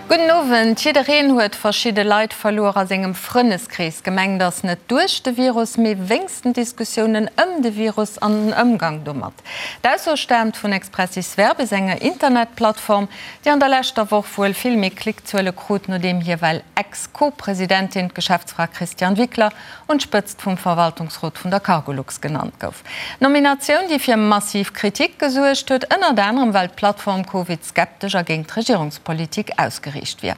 Gudden Owend. Jiddereen huet verschidde Leit verluer a sengem Frënneskrees. Gemengt ass net duerch de Virus, mee wéinst den Diskussiounen ëm de Virus an den Ëmgang domat. D'Ausso staamt vun Expressis Verbis, enger Internetplattform, déi an der leschter Woch wuel vill méi Klickzuele krut, nodeem hir well Ex-Co-Presidentin, d'Geschäftsfra Christiane Wickler, un d'Spëtzt vum Verwaltungsrot vun der Cargolux genannt gouf. Nominatioun, déi fir massiv Kritik gesuergt huet, ënnert anerem well d'Plattform Covid-skeptesch a géint d'Regierungspolitik ausgeriicht wier.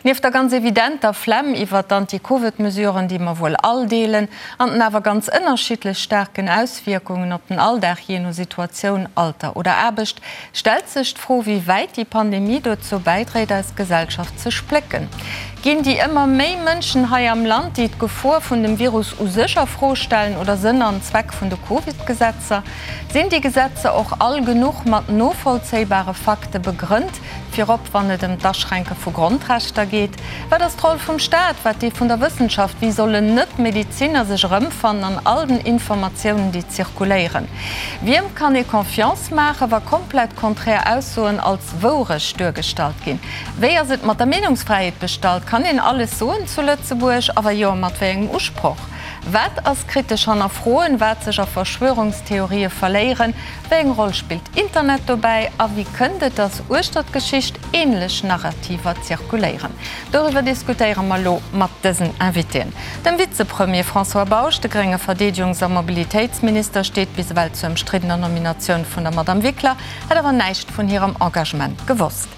Nieft der ganz evidenter Flemm iwwert d'Anti-Covid-Mesuren, déi mer wuel all deelen, an den awer ganz ënnerschiddlech staarken Auswierkungen op den Alldag, jee no Situatioun, Alter oder Aarbecht, stellt sech d'Fro, wéi wäit déi Pandemie dozou bäidréit, eis Gesellschaft ze splécken. Ginn déi ëmmer méi Mënschen hei am Land, déi d'Gefor vun dem Virus u sech a Fro stellen oder Sënn an Zweck vun de Covid-Gesetzer? Sinn déi Gesetzer och all genuch mat novollzéibare Fakte begrënnt, virop wann et ëm d'Aschränke vu Grondrechter geet? Wat ass d'Roll vum Staat, wat déi vun der Wëssenschaft? Wéi sollen Net-Medeziner sech erëmfannen an all den Informatiounen, déi zirkuléieren? Wiem kann ee Confiance maachen, wa komplett konträr Aussoen als Wourecht duergestallt ginn? Wéi ass et mat der Meenungsfräiheet bestallt? Kann een alles soen zu Lëtzebuerg? A wa jo, mat wéi engem Usproch? Wat ass kritesch hannerfroen, wat sech a Verschwörungstheorië verléieren? Wéi eng Roll spillt Internet dobäi? A wéi kënnt et, datt uechter d'Geschicht änlech Narrativer zirkuléieren? Doriwwer diskutéiere mer elo mat dësen Invitéen. Dem Vizepremier François Bausch, de grénge Verdeedegungs a Mobilitéitsminister, steet bis ewell zur ëmstriddener Nominatioun vun der Madamm Wickler, hätt awer näischt vun hirem Engagement gewosst.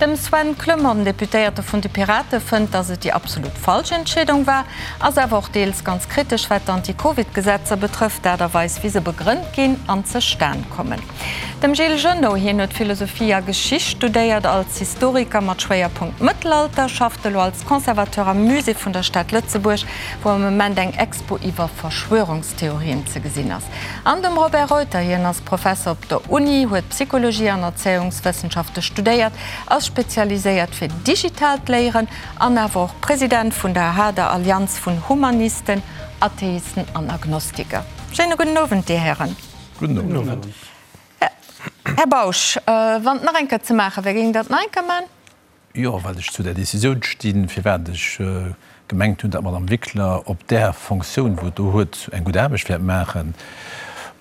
Dem Sven Clement, den Deputéierte vun de Pirate, fënnt, datt et déi absolut falsch Entscheedung war, ass awer och deels ganz kritesch, wat d'Anti-Covid-Gesetzer betrëfft, d'Aart a Weis, wéi se begrënnt ginn an zestan kommen. Dem Gilles Genot, hien huet Philosophie a Geschicht studéiert, als Historiker mat Schwéierpunkt Mëttelalter, schafft elo als Conservateur am Musée vun der Stad Lëtzebuerg, wou am Moment eng Expo iwwer Verschwörungstheorien ze gesinn ass. An dem Robert Reuter, hien ass Professer op der Uni, huet Psychologie an Erzéiungswëssenschafte studéiert, ass spezialiséiert fir digitaalt Léieren an awer och President vun der aha, der Allianz vun Humanisten, Atheisten an Agnostiker. Schéine gudden Owend, Dir Hären. Gudden Owend. Här Bausch, wann et nach eng Kéier ze maache wär, géingt Der et nach eng Kéier maachen? Jo, well ech zu där Décisioun stinn, firwat ech gemengt hunn, datt d'Madame Wickler op där Fonctioun, wou et do huet, eng gutt Aarbecht wäert maachen.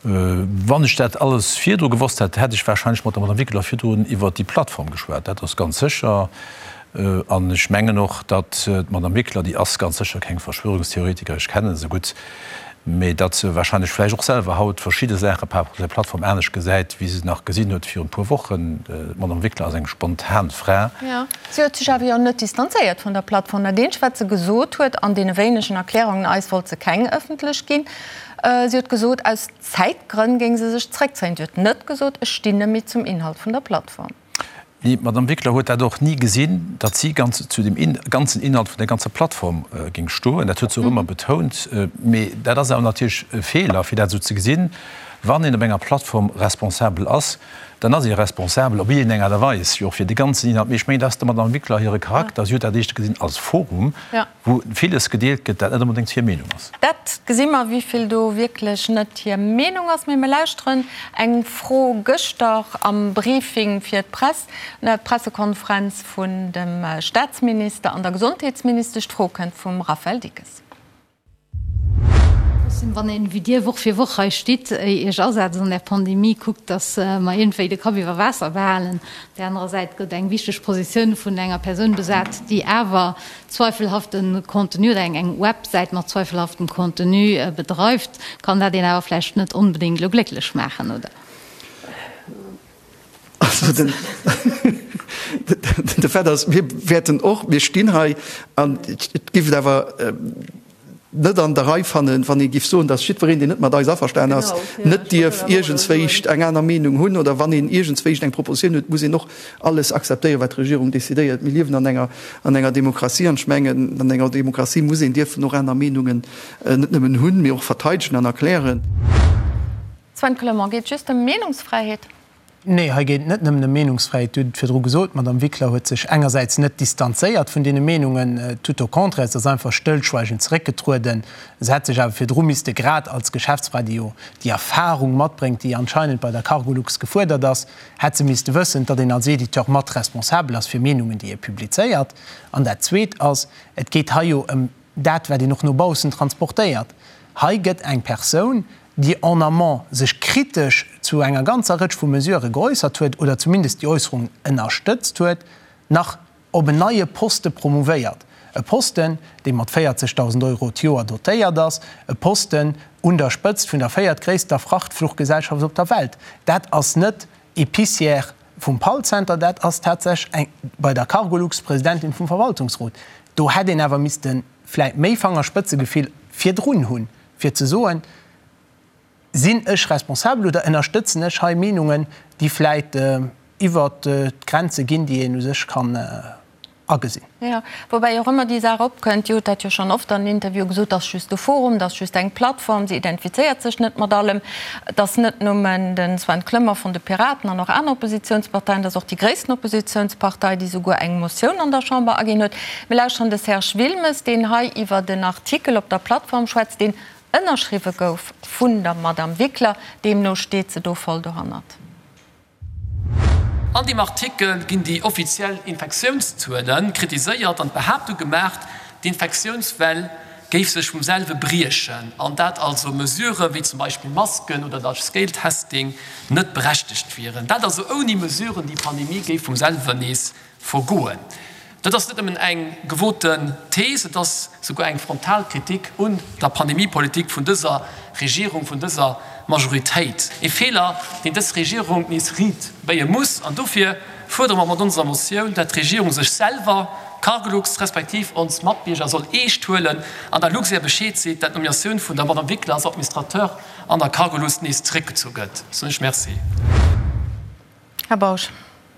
Wann ech dat alles virdru gewosst hätt, hätt ech wahrscheinlech mat der Madame Wickler virdrun iwwert déi Plattform geschwat. Dat ass ganz sécher. An ech mengen och, datt d'Madame Wickler, déi ass ganz sécher keng Verschwörungstheoretikerin, ech kenne se gutt, mee datt se wahrscheinlech vläicht och selwer haut verschidde Saache par rapport zu der Plattform anescht gesäit, wéi se nach gesinn huet virun e puer Wochen. D'Madame Wickler ass eng spontan Fra. Jo, si huet sech awer jo net distanzéiert vun der Plattform. Dat eenzegt, wat se gesot huet an deene wéinegen Erklärungen, eis wollt se keng ëffentlech ginn, si huet gesot, aus Zäitgrënn géing se sech zréckzéien. Si huet net gesot, ech stinn net méi zum Inhalt vun der Plattform. Mee d'Madame Wickler huet dat och ni gesinn, datt si ganz zu dem ganzen Inhalt vun der ganzer Plattform géing stoen. Dat huet se och ëmmer betount. Mee dat ass awer natierlech e Feeler, fir dat esou ze gesinn. Wann een op enger Plattform responsabel ass, dann ass ee responsabel op iergendeng Aart a Weis jo och fir de ganzen Inhalt. Mee ech mengen, dat ass der Madame Wickler hire Charakter. Si huet dat éischter gesinn als Forum, wou villes gedeelt gëtt, dat net onbedéngt hir Meenung ass. Dat gesi mer, wéi vill do wierklech net hir Meenung ass. Mee mir lauschteren eng Fro gëschter am Briefing fir d'Press, d'Pressekonferenz vun dem Staatsminister an der Gesondheetsministesch. D'Fro kënnt vum Raphaël Dickes. Trotzdem, wann een, wéi Dir, Woch fir Woch hei stitt, Iech asetzt an där Pandemie, kuckt, datt mer iergendwéi de Kapp iwwer Waasser behalen. Op där anerer Säit gëtt eng wichteg Positioun vun enger Persoun besat, déi awer zweifelhafte Contenu oder eng Websäit mat zweifelhaftem Contenu bedreift, kann dat een awer vläicht net onbedéngt elo glécklech maachen, oder? Also den, de Fait ass, mir wäerten och, mir stinn hei an et géif et awer net an der Rei fannen, wann ee géif soen, datt jiddwereen, deen net mat eis averstan ass, net dierf iergendswéicht eng aner Meenung hunn oder wann een iergendswéicht eng Propositioun huet, muss een och alles akzeptéieren, wat d'Regierung decidéiert. Mir liewen an enger, an enger Demokratie an ech mengen, an enger Demokratie muss een dierfen och aner Meenungen net nëmmen hunn, mee och verteidegen an erklären. Sven Clement, Geet just ëm Meenungsfräiheet? Nee, hei geet et net nëmmen ëm Meenungsfräiheet. Dir hutt et virdru gesot, d'Madame Wickler huet sech engersäits net distanzéiert vun deene Meenungen, tout au contraire, se ass einfach stëllschweigend zeréckgetrueden. Se hätt sech awer virdru misste, grad als Geschäftsfra, déi jo déi Erfahrung matbréngt, déi anscheinend bei der Cargolux gefuerdert ass, hätt se misste wëssen, datt een als Editeur mat responsabel ass fir Meenungen, déi ee publizéiert. An dat Zweet ass, et geet hei jo ëm dat, wat een och no baussen transportéiert. Hei gëtt eng Persoun, déi en amont sech kritesch zu enger ganzer Rëtsch vu Mesurë geäussert huet oder zumindest déi Äusserungen ënnerstëtzt huet, nach op en neie Poste promouvéiert. E Posten, dee mat 40.000 Euro d'Joer dotéiert ass, e Posten un der Spëtzt vun der véiertgréisster Frachtfluchgesellschaft op der Welt. Dat ass net Épicière vum Pall-Center, dat ass tatsächlech eng bei der Cargolux Presidentin vum Verwaltungsrot. Do hätt een awer misste vläit méi Fangerspëtzegefill virdrun hunn, fir ze soen, Sinn ech responsabel oder ënnerstëtzen ech hei Meenungen, déi vläit iwwert d'Grenze ginn, déi een u sech kann agesinn? Jo, woubäi och ëmmer déi Saach opkënnt, Dir hutt dat jo schonn oft an Interviewe gesot, dat ass just e Forum, dat ass just eng Plattform, se identifizéiert sech net mat allem. Et ass net nëmmen de Sven Clement vun de Piraten an och aner Oppositionsparteien, et ass och déi gréissten Oppositionspartei, déi souguer eng Motioun an der Chamber aginn huet. Mir lauschteren de Serge Wilmes, deen hei iwwert en Artikel op der Plattform schwätzt, deen ënnerschriwwe gouf vun der Madame Wickler. Deemno steet se do voll dohannert. An deem Artikel ginn déi offiziell Infektiounszuele kritiséiert an d'Behaaptung gemaacht, d'Infektiounswell géif sech vum selwe briechen an dat also Mesurë wéi zum Beispill Masken oder Large-Scale-Testing net berechtegt wieren. Dat also ouni Mesuren, déi Pandemie géif vum selwen nees Vergoen. Dat ass net nëmmen eng gewoten Thees, et ass souguer eng frontal Kritik un der Pandemiepolitik vun dëser Regierung, vun dëser Majoritéit. E Feeler, deen dës Regierung nees riit béie muss. An dofir fuerdere mer mat onser Motioun, dat d'Regierung sech selwer, Cargolux respektiv ons Matbierger soll eescht huelen an der Luxair Bescheed seet, dat d'Nominatioun vun der Madame Wickler als Administrateur an der Cargolux nees zeréckgezu gëtt. Soen ech Merci. Här Bausch.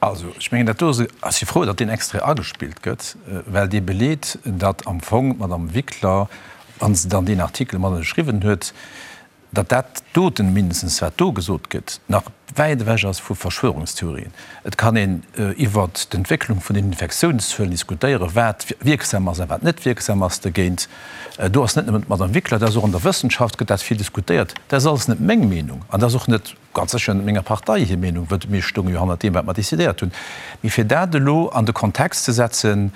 Also, ech mengen, dat do ass, ech si frou, datt deen Extrait agespillt gëtt, well dee beleet, datt am Fong d'Madame Wickler, wa se dann deen Artikel mat ënnerschriwwen huet, datt dat doten, mindestens wat do gesot gëtt, nach wäit ewech ass vu Verschwörungstheorien. Et kann een iwwert d'Entwécklung vun den Infektiounszuelen diskutéieren, wat wierksam ass a wat net wierksam ass dogéint. Do ass net nëmmen d'Madame Wickler, dat ass och an der Wëssenschaft gëtt dat vill diskutéiert. Dat ass alles net meng Meenung an dat ass och net, Ganz sécher net menger Partei hir Meenung, wëll mir stounge jo hannert deem, wat mer decidéiert hunn. Mee fir dat elo an de Kontext ze setzen,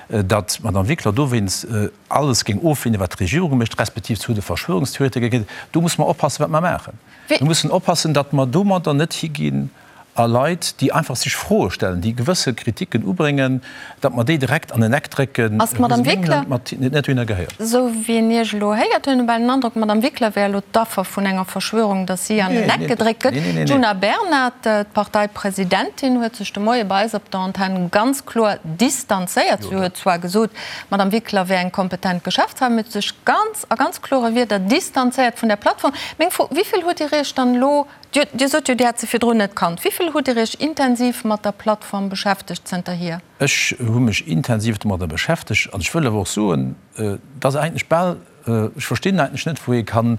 datt d'Madame Wickler dowéinst alles géing ofleenen, wat d'Regierung mécht, respektiv zu de Verschwörungstheoretiker gehéiert, do musse mer oppassen, wat mer maachen. Mir mussen oppassen, datt mer domadder net higinn a Leit, déi einfach sech Froe stellen, déi gewësse Kritiken ubréngen, datt mer déi direkt an en Eck drécken, Ass d'Madame Wickler, net dohinner gehéiert. Esou wéi een Iech elo héiert, huet een bal den Androck, d'Madame Wickler wär elo d'Affer vun enger Verschwörung, datt si an en Eck gedréckt gëtt. D'Djuna Bernard, d'Parteipresidentin, huet sech de Moie bei eis op der Antenn ganz kloer distanzéiert. Si huet zwar gesot, d'Madame Wickler wär eng kompetent Geschäftsfra, mee huet sech ganz a ganz klore Wierder distanzéiert vun där Plattform. Meng Fro, Wéi vill hutt Dir Iech dann elo Dir sot jo, Dir hätt se virdrun net kannt. Wéi vill hutt Dir Iech intensiv mat der Plattform beschäftegt zënterhier? Ech hu mech intensiv domadder beschäftegt an ech wëll awer och soen, dass eigentlech bal, ech verstinn eigentlech net, wou ee kann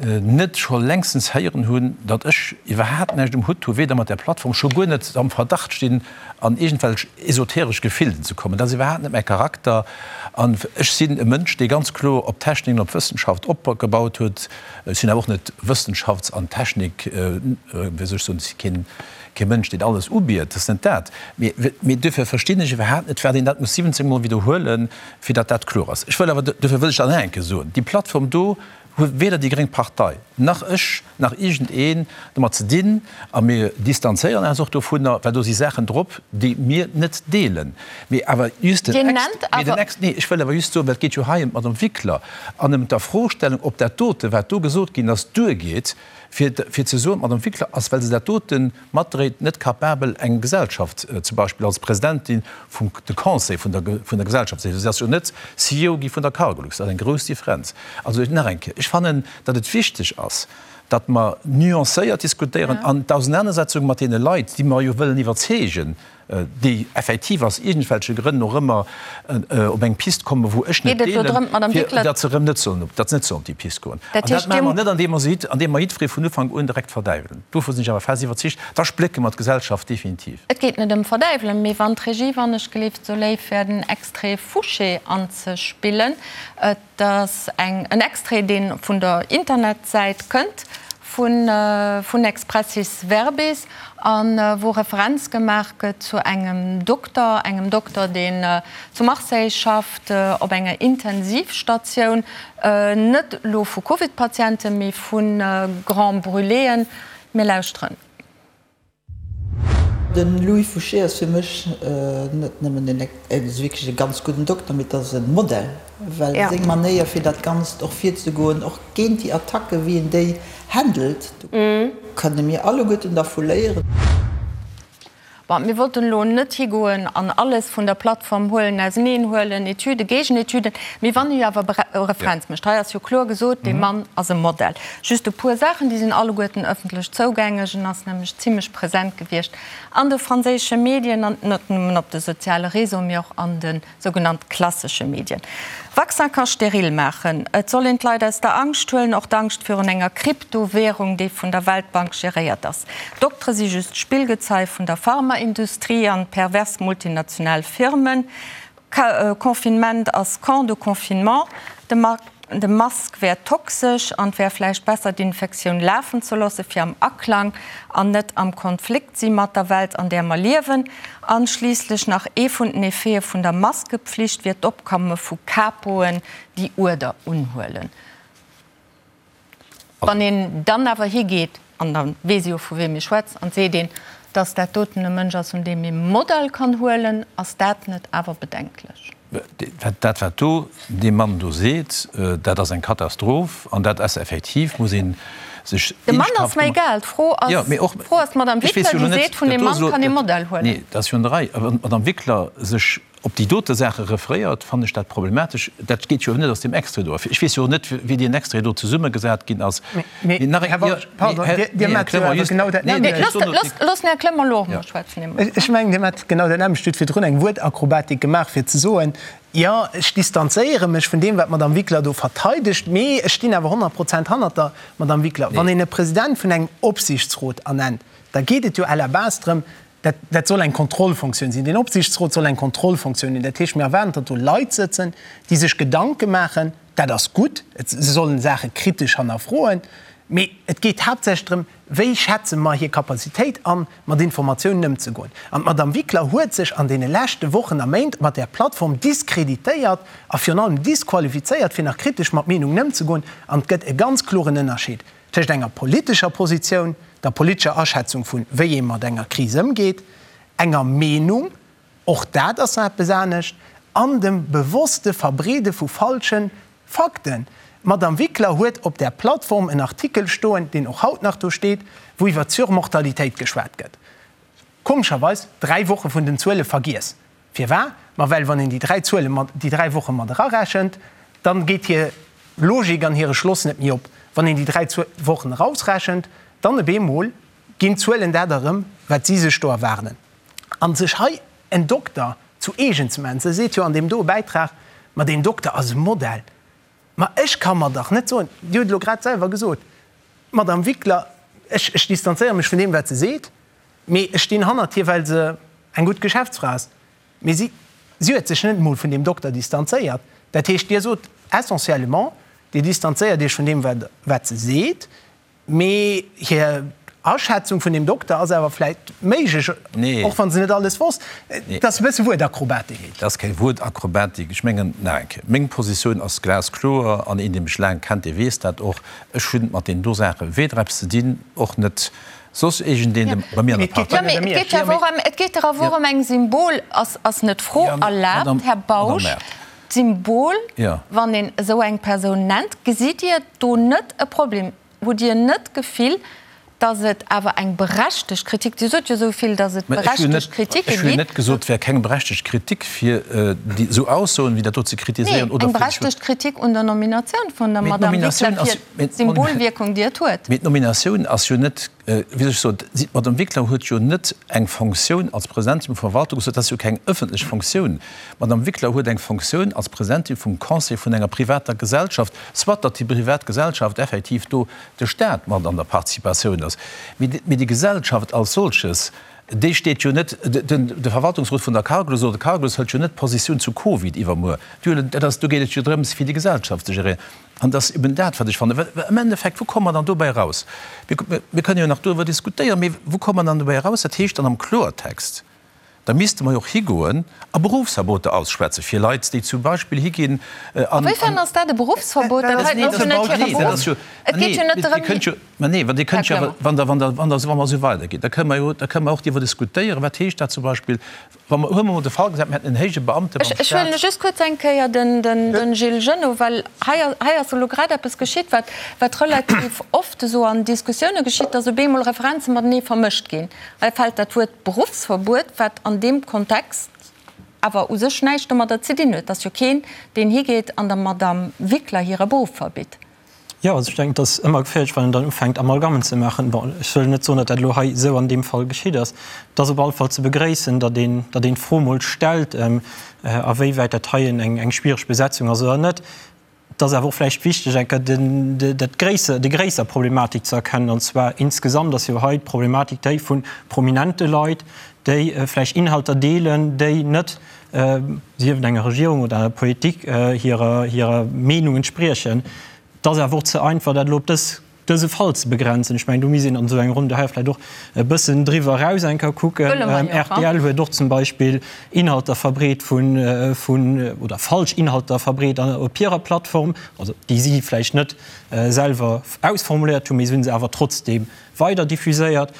net scho längstens héieren hunn, datt ech iwwerhaapt näischt um Hutt hu, weder mat där Plattform, scho guer net am Verdacht stinn, an iergendwelch esoteresch Gefilden ze kommen. Dat ass iwwerhaapt net mäi Charakter an ech sinn e Mënsch, dee ganz kloer op Technik an op Wëssenschaft opgebaut huet. Ech sinn awer och net Wëssenschafts an Technik, wéi soll ech soen, ech si keen, kee Mënsch, deen alles ubiet, dat ass net dat. Mee, mee duerfir verstinn ech iwwerhaapt net, firwat een dat muss 17 Mol widderhuelen, fir datt dat kloer ass. Ech wëll awer, duerfir wëll ech dat nach eng Kéier soen, déi Plattform do huet weder déi gréng Partei, nach ech, nach iergendeen domat ze dinn. A mir distanzéieren eis och dovunner, well do si Saachen drop, déi mir net deelen. Mee awer just den Ex, mee den Ex, nee, ech wëll awer just soen, well et geet jo hei ëm d'Madame Wickler an ëm d'Afrostellung, ob dat dote, wat do gesot ginn ass, duergeet, fir, fir ze soen, d'Madame Wickler ass, well se dat dote matdréit, net capabel, eng Gesellschaft zum Beispill als Presidentin vum de Conseil vun der, vun der Gesellschaft ze. Si ass jo net CEO gi vun der Cargolux. Dat ass eng grouss Differenz. Also nach eng Kéier, ech fannen, datt et wichteg ass, datt mer nuancéiert diskutéieren an d'Ausenanersetzung mat deene Leit, déi mer jo wëllen iwwerzeegen. déi effektiv aus iergendwelche Grënn och ëmmer op eng Pist kommen, wou ech net deelen, fir datt se erëm net sollen op, datt se net sollen op déi Pist goen. An dat maache mer net, andeem mer se, andeem mer jiddweree vun Ufank un direkt verdäiwelen. Dovu sinn ech awer fest iwwerzeegt, da splécke mer d'Gesellschaft definitiv. Et geet net ëm verdäiwelen, mee wann d'Regie, wann ech gelift, sou léif wär, den Extrait Fouché anzespillen. Et ass eng, en Extrait, dee vun der Internetsäit kënnt vun, vun Expressis Verbis a wou Referenz gemaach gëtt zu engem Dokter, engem Dokter, deen zu Marseille schafft, op enger Intensivstatioun, net elo vu Covid-Patienten, mee vu Grands Brûléen. Mir lauschteren. De Louis Fouché ass fir mech net nëmmen en wierklech e ganz gudden Dokter, mee et ass e Modell, well seng Manéier fir dat Ganzt och virzegoen, och géint déi Attacken, wéi en déi handelt, do kënne mir alleguerten dervu léieren. Bon, mir wollten elo net higoen an alles vun der Plattform huelen, auseneen huelen, Etüden, Géigenetüden, mee wann ee jo awer Referenz mécht, hei ass jo kloer gesot, dee Mann ass e Modell. Just e puer Saachen, déi sinn alleguerten ëffentlech zougängeg. En ass nämlech zimlech present gewiescht an de franséische Medien, an net nëmmen op de soziale Réseauen, mee och an de sougenannt klassesche Medien. Vaccin ka steril maachen. Et soll een d'Leit aus der Angscht huelen, och d'Angscht virun enger Kryptowärung, déi vun der Weltbank geréiert ass. Doktere si just Spillgezei vun der Pharmaindustrie an pervers multinational Firmen. Confinement ass Camp de confinement. De Mask wär toxesch an et wär vläicht besser d'Infektioun lafen ze loosse fir am Aklang an net am Konflikt si mat der Welt an där mer liewen. An schliisslech nach ee vun den Effete vun der Maskepflicht wier d'Opkomme vu Capoen déi Uerder unhuelen. Wann een dann awer higeet, an da weess ee jo vu wiem ee schwätzt, an seet een, datt dat doten e Mënsch ass, un deem ee Modell kann huelen, ass dat net awer bedenklech? Dat, wat do dee Mann do seet, dat ass eng Katastroph an dat ass effektiv, muss ee sech De Mann ass mer egal. D'Fro ass, d'Fro ass d'Madame Wickler, déi seet, vun deem Mann kann ee Modell huelen. Nee, dat ass jo an der Rei. Wann d'Madame Wickler sech op déi dote Saache referéiert, fannen ech dat problematesch. Dat geet jo net aus deem Extrait do ervir. Ech weess jo och net, wéi deen Extrait do zesummegesat ginn ass. Mee, nach eng, Här Walch, pardon, Dir maacht jo awer genau dat nämmlecht. Loosst den Här Clement elo och emol schwätzen. Ech mengen, Dir maacht genau dat nämmlecht. Dir hutt virdrun eng Wuertakrobatik gemaach, fir ze soen, Jo, ech distanzéiere mech vun deem, wat d'Madame Wickler do verteidegt, mee ech stinn awer 100 Prozent hannert der Madame Wickler. Wann een e President vun engem Opsiichtsrot ernennt, da geet et jo à la base drëm, Dat, dat soll eng Kontrollfunktioun sinn. Deen Opsiichtsrot soll eng Kontrollfunktioun hunn. Dat heescht, mir erwaarden, datt do Leit sëtzen, déi sech Gedanke maachen. Dat ass gutt. Et, se sollen Saache kritesch hannerfroen. Mee et geet haaptsächlech drëm, Wéi schätze mer hir Capacitéit an, mat Informatiounen ëmzegoen? An d'Madame Wickler huet sech an deene leschte Wochen a Méint mat där Plattform diskreditéiert a virun allem disqualifizéiert, fir nach kritesch mat Meenungen ëmzegoen. An et gëtt e ganz kloren Ënnerscheed Tëscht enger politescher Positioun, der politescher Aschätzung vun wéi ee mat enger Kris ëmgeet, enger Meenung, och dat ass nach eppes anescht, an dem bewosste Verbreede vu falsche Fakten. D'Madame Wickler huet op där Plattform en Artikel stoen, deen och haut nach do steet, wou iwwer d'Surmortalitéit geschwat gëtt. Komescherweis 3 Woche vun den Zuele vergiess. Firwar? Ma well wann een déi 3 Zuele mat, déi 3 Woche mat erarechent, dann geet hir Logik an hire Schloss net méi op. Wann een déi 3 Wochen erausrechent, dann op eemol ginn d'Zuelen dat erëm, wat si sech do erwaarden. An sech hei en Dokter zu eegen ze maachen, se seet jo an deem doe Bäitrag, ma deen Dokter ass e Modell. Ma ech ka mer dach net soen, Dir hutt elo grad selwer gesot, Madame Wickler, ech, ech distanzéiere mech vun deem, wat se seet, Mee ech stinn hannert hir, well se eng gutt Geschäftsfra ass. Mee si, si huet sech net emol vun deem Dokter distanzéiert. Dat heescht, Dir sot essentiellement, Dir distanzéiert Iech vun deem, wat, wat se seet, mee hir Aschätzung vun deem Dokter ass awer vläicht méiglech, och wa se net alles wosst. Dat ass e bësse Wuertakrobatik. Nee, dat ass keng Wuertakrobatik. Ech mengen, nach eng Kéier, meng Positioun ass glaskloer an een, dee mech laang kennt, dee weess dat och, Ech hunn mat deenen do Saache weder eppes ze dinn, och net Soss iergendeen de bei mir an der Partei. Jo, mee et geet jo awer och ëm, et geet dach awer och ëm eng Symbol. Ass, ass net d'Fro erlaabt, Här Bausch, d'Symbol, wann een esou eng Persoun nennt, gesitt Dir do net e Problem? Hutt Dir net d'Gefill, datt et awer eng berechtegt Kritik, Dir sot jo esou vill, datt et berechtegt Kritike Ech hunn net gesot, et wär keng berechtegt Kritik, fir déi esou Aussoen wéi dat do ze kritiséieren oder. Nee, eng berechtegt Kritik un der Nominatioun vun der Madame Wickler fir d'Symbolwierkung, déi et huet. Mee d'Nominatioun ass jo net. Wéi soll ech soen, si, d'Madame Wickler huet jo net eng Fonctioun als Presidentin vum Verwaltungsrot, dat ass jo keng ëffentlech Fonctioun. D'Madame Wickler huet eng Fonctioun als Presidentin vum Conseil vun enger privater Gesellschaft, soit datt déi privat Gesellschaft effektiv do de Stat mat an der Participatioun ass, mee déi Gesellschaft als solches, déi steet jo net, de Verwaltungsrot vun der Cargolux oder de Cargolux hëlt jo net Positioun zu Covid iwwermuer. Déi huelen, dat ass, do geet et jo drëms, fir déi Gesellschaft ze geréieren. An et ass eben dat, wat ech fannen. Well am Endeffekt, wou komme mer dann dobäi eraus? Mir kënnen jo nach doriwwer diskutéieren, mee wou komme mer dann dobäi eraus? Dat heescht dann am Kloertext, da misste mer jo och higoen a Berufsverboter ausschwätze fir Leit, déi zum Beispill higinn an. Awéifern ass dat e Berufsverbot? Dat heiten ass jo net hire Beruff. Et geet jo net drëm. Mä nee, well Dir kënnt jo awer, wann Der, wann Der, wann Der, wa mer esou weiderginn, da kënne mer jo, da kënne mer och driwwer diskutéieren, wat heescht dat zum Beispill, Wa mer, huele mer mol de Fall gesat, mir hätten en héije Beamte beim Ech huelen Staat. just kuerz eng Kéier den Gilles Genot, well hei hei ass elo grad eppes geschitt, wat wat relativ oft esou an Diskussioune geschitt, dass op eemol Referenze matenee vermëscht ginn. Hei fält dat Wuert Beruffsverbuet, wat an deem Kontext awer u sech näischt domadder ze dinn huet. Et ass jo keen, deen higeet an der Madamm Wickler hire Beruff verbitt. Jo, also ech denken, et ass ëmmer geféierlech, wann een dann ufänkt Amalgammen ze maachen. Bon, ech wëll net soen, datt dat elo hei esou an deem Fall geschitt ass. Et ass op alle Fall ze begréissen, datt een, datt een d'Fro emol stellt, awéiwäit dat hei eng, eng schwiereg Besetzung ass oder net. Et ass awer och vläicht wichteg, eng Kéier den, dat gréisser, déi gréisser Problematik ze erkennen, an zwar insgesamt ass jo hei d'Problematik déi vu prominente Leit, déi vläicht Inhalter deelen, déi net, sief et enger Regierung oder enger Politik, hirer hirer Meenung entspriechen. Et ass awer och ze einfach, dat elo op dës, dëse Fall ze begrenzen. Ech mengen, do misst een an esou enger Ronn hei vläicht och e bëssen driwwer eraus eng Kéier kucken. Rtl huet och zum Beispill Inhalter verbreet vun, vun, oder falsch Inhalter verbreet op hirer Plattform, also déi si vläicht net selwer ausformuléiert hunn, mee se hu se awer trotzdeem weider diffuséiert,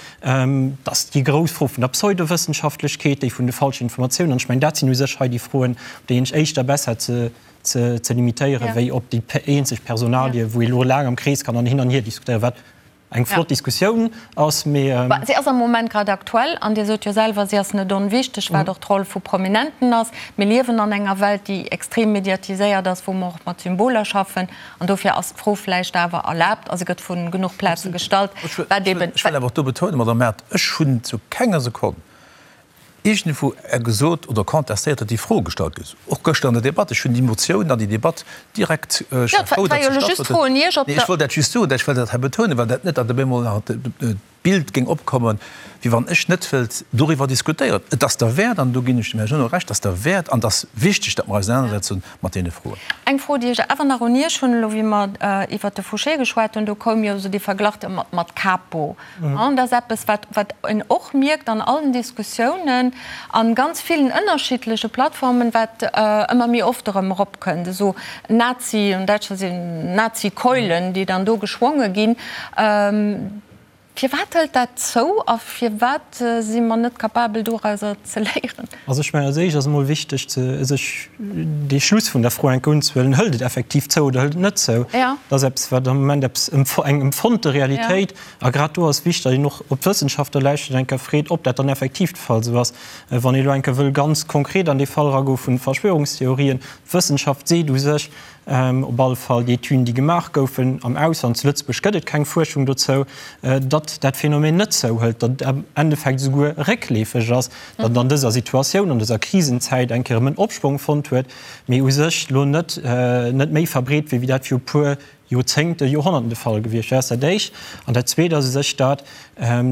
dass déi grouss Fro vun der Pseudowëssenschaftlechkeet, déi vun de falschen Informatiounen, an ech mengen, dat sinn u sech hei déi Froen, op déi een sech éischter besser ze ze limitéieren, wéi op déi eenzeg Personalie, wou ee lo laang am Krees kann an hin an hier diskutéieren, wat eng flott Diskussioun ass, mee. Si ass am Moment grad aktuell, an Dir sot jo selwer, si ass net onwichteg, wat och d'Roll vu Prominenten ass. Mir liewen an enger Welt, déi extrem mediatiséiert ass, wou mer och mat Symboler schaffen. An dofir ass d'Fro vläicht awer erlaabt a se gëtt vu genuch Plaze gestallt, wat eben. Ech wëll awer och do betounen, Madame Mart, ech hunn zu kenger Sekonn iergendwou gesot oder contestéiert, datt déi Fro gestallt gëtt, och gëschter an der Debatt. Ech hunn déi Motioun an déi Debatt direkt, ech war frou, datt se stattfonnt huet. Nee, ech wollt dat just soen, ech wëll dat hei betounen, well dat net, datt op eemol nach Bild géing opkommen, wéi wann ech net wëllt doriwwer diskutéieren. Et ass derwäert, an do ginn ech dem Här Genot Recht, et ass derwäert an et ass wichteg, datt mer eis ausenanersetzen mat deene Froen. Eng Fro, déi ech awer nach un Iech hunn, elo wéi mer iwwert de Fouché geschwat hunn, do koum jo esou dee Verglach mat Capo. An dat ass eppes, wat, wat een och mierkt an allen Diskussiounen, a ganz villen ënnerschiddleche Plattformen, wat ëmmer méi oft erëm eropkënnt, esou Nazi, an Däitschland sinn Nazi-Keulen, déi dann do geschwonge ginn. Firwat hëlt dat zou a firwat si mer net capabel dorauser ze léieren? Also ech mengen, als éischt ass emol wichteg ze sech dee Schluss vun der Fro eng Kéier unzehuelen, Hëlt et effektiv zou oder hëlt et net zou? Dat ass eppes, wat am Moment eppes eng empfonnte Realitéit. A grad do ass wichteg, datt een och op d'Wëssenschaftler lauschtert an eng Kéier freet, ob dat dann effektiv de Fall esou ass. Wann ee elo eng Kéier wëll ganz konkret an dee Fall eragoe vun Verschwörungstheorien, d'Wëssenschaft seet u sech, Op alle Fall déi Etüden, déi gemaach goufen am Ausland, zu Lëtzebuerg gëtt et keng Fuerschung dozou, datt dat Phänomen net zouhëlt, datt et am Endeffekt esouguer réckleefeg ass, datt et an dëser Situatioun, an dëser Krisenzäit eng Kéier erëm en Opschwong fonnt huet, mee u sech elo net net méi verbreet wier, wéi dat viru puer Joerzéngten, Joerhonnerten de Fall gewiescht wär. Dat ass dat Éischt. An dat Zweet ass u sech dat,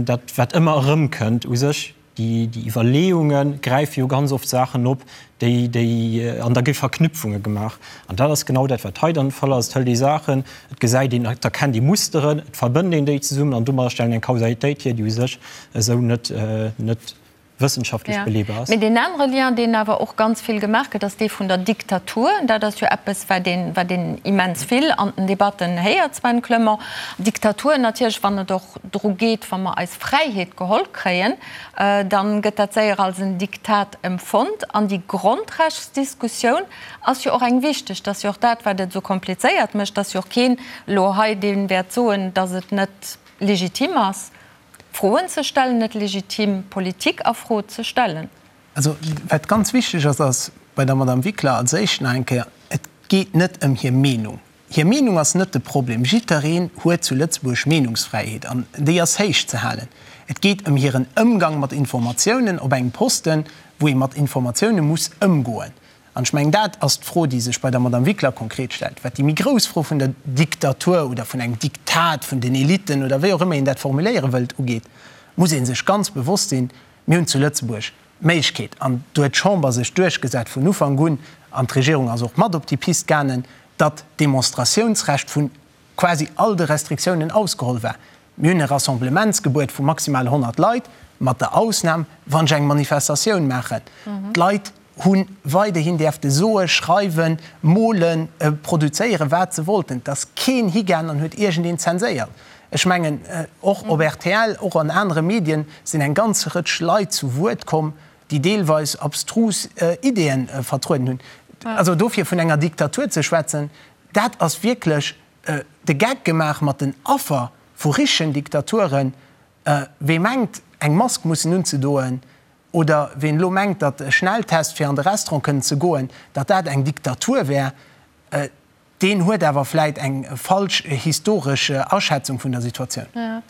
dat wat ëmmer erëmkënnt, u sech Déi Iwwerleeunge gräife jo ganz oft Saachen op, déi, déi, an da gi Verknüpfunge gemaach. An dat ass genau dat, wat hei dann de Fall ass. Et hëlt ee Saachen, et gesäit een, et erkennt ee Musteren, et verbënnt een déi zesummen an domadder stellt een eng Kausalitéit hier, déi u sech esou net, net wëssenschaftlech beleebar ass. Mee deen anere Lien, deen awer och ganz vill gemaach gëtt, ass dee vun der Diktatur. Dat ass jo eppes, wat een, wat een immens vill an den Debatten héiert, Sven Clement. Diktatur natierlech, wann et och dru geet, wa mer eis Fräiheet geholl kréien, da gëtt dat séier als en Diktat empfonnt. An déi Grondrechtsdiskussioun ass jo och eng wichteg. Dat ass jo och dat, wat et esou komplizéiert mécht. Et ass jo och keen elo hei, dee wäert soen, datt et net legitim ass, Froen ze stellen, net legitim, Politik a Fro ze stellen. Also, wat ganz wichteg ass, ass bei der Madame Wickler als éischt nach eng Kéier, Et geet net ëm hir Meenung. Hir Meenung ass net de Problem. Jiddereen huet zu Lëtzebuerg Meenungsfräiheet an déi ass héich ze halen. Et geet ëm hiren Ëmgang mat Informatiounen op engem Posten, wou ee mat Informatioune muss ëmgoen. An ech mengen, dat ass d'Fro, déi sech bei der Madame Wickler konkret stellt. Wat déi méi grouss Fro vun der Diktatur oder vun engem Diktat vun den Eliten oder wéi och ëmmer een dat formuléiere wëllt ugeet, muss ee sech ganz bewosst sinn, Mir hunn zu Lëtzebuerg d'Méiglechkeet, an do huet d'Chamber sech duerchgesat vun Ufank un, an d'Regierung ass och mat op déi Pist gaangen, datt d'Demonstratiounsrecht vu quasi all de Restriktiounen ausgeholl war. Mir hunn e Rassemblementsgebuet vu maximal 100 Leit, mat der Ausnam, wann ech eng Manifestatioun maachen. D'Leit hu weiderhin däerfte soe, schreiwen, molen, produzéieren, wat se wollten. Et ass keen higaangen an huet iergendeen zenséiert. Ech mengen, och op rtl, och an anere Medien sinn eng ganz Rëtsch Leit zu Wuert komm, déi deelweis abstrus Ideeën vertrueden hunn. Also dofir vun enger Diktatur ze schwätzen, dat ass wierklech de Geck gemaach mat den Affer vu richtegen Diktaturen. Wee mengt, eng Mask mussen unzedoen, oder ween elo mengt, datt e Schnelltest fir an de Restaurant kënnen ze goen, datt dat eng Diktatur wär, deen huet awer vläit eng falsch historesch Aschätzung vun der Situatioun.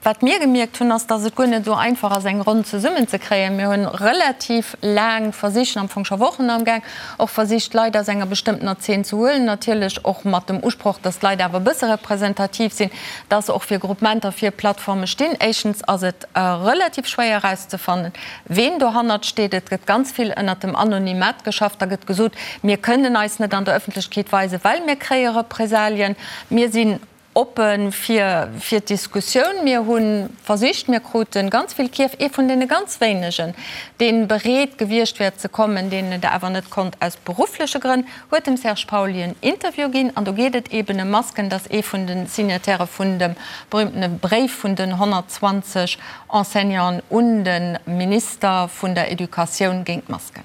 Wat mir gemierkt hunn, ass, datt et guer net esou einfach ass, eng Ronn zesummen ze kréien. Mir hunn relativ laang versicht, am Fong scho Wochen amgaang, och versicht, Leit aus enger bestëmmtener Zeen ze huelen, natierlech och mat dem Usproch, datt d'Leit awer e bësse representativ sinn, datt se och fir Groupementer, fir Plattforme stinn. Éischtens ass et relativ schwéier erauszefannen, Ween dohannert steet, et gëtt ganz vill ënnert dem Anonymat geschafft. Da gëtt gesot, mir kënnen eis net an der Ëffentlechkeet weisen, well mir kréie Represalien. Mir sinn oppe fir fir d'Diskussioun. Mir hu versicht, mir krute ganz vill Kierf. Ee vun deene ganz wéinegen, dee bereet gewiescht wär ze kommen, deen et awer net konnt aus beruffleche Grënn, huet dem Serge Pauly en Interview ginn. An do geet et eeben ëm Masken. Dat ass ee vun de Signatairë vun dem berühmtene Bréif vun den 120 Enseignanten un de Minister vun der Educatioun géint d'Masken.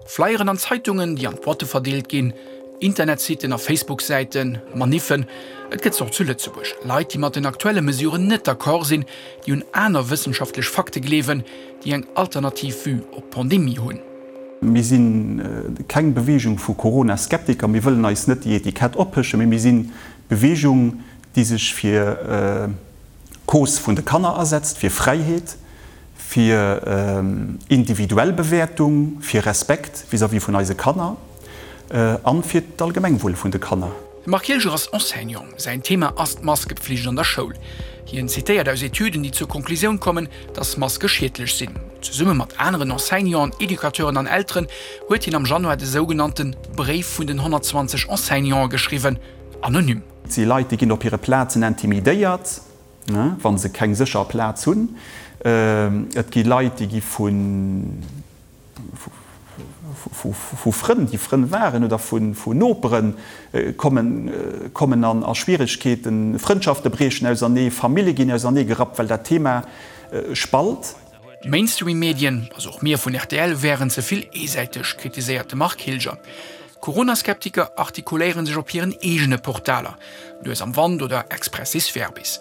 Flyeren an Zeitungen, déi an d'Boîte verdeelt ginn, Internetsiten a Facebook-Säiten, Maniffen, et gëtt se och zu Lëtzebuerg. Leit, déi mat den aktuelle Mesuren net d'accord sinn, déi un aner wëssenschaftlech Fakte gleewen, déi eng alternativ Vue op d'Pandemie hunn. Mir si keng Beweegung vu Corona-Skeptiker, mir wëllen eis net déi Etikett ophëschen, mee mir sinn d'Beweegung, déi sech fir d'Cause vun de Kanner asetzt, fir Fräiheet, fir individuell Bewäertung, fir Respekt vis-à-vis vun eise Kanner an fir d'Allgemengwuel vun de Kanner. De Marc Hilger ass Enseignant. Säin Thema ass d'Maskepflicht an der Schoul. Hien zitéiert aus Etüden, déi zur Konklusioun kommen, dass Maske schiedlech sinn. Zesumme mat aneren Enseignanten, Educateuren an Elteren huet hien am Januar de sougenannte Bréif vun den 120 Enseignante geschriwwen, anonym. Et si Leit, déi ginn op hire Plazen intimidéiert, wa se keng sécher Plaz hunn. Et gi Leit, déi gi vu Frënn, déi Frënn waren, oder vun Nopere kommen a Schwieregkeeten. Frëndschafte briechen ausernee, Famille ginn ausernee gerappt, well dat Thema spalt. D'Mainstream-Medien, also och mir vun rtl, wären ze vill eesäiteg, kritiséiert de Marc Hilger. Corona-Skeptiker artikuléiere sech op hiren eegene Portaler, Nues am Wand oder Expressis Verbis.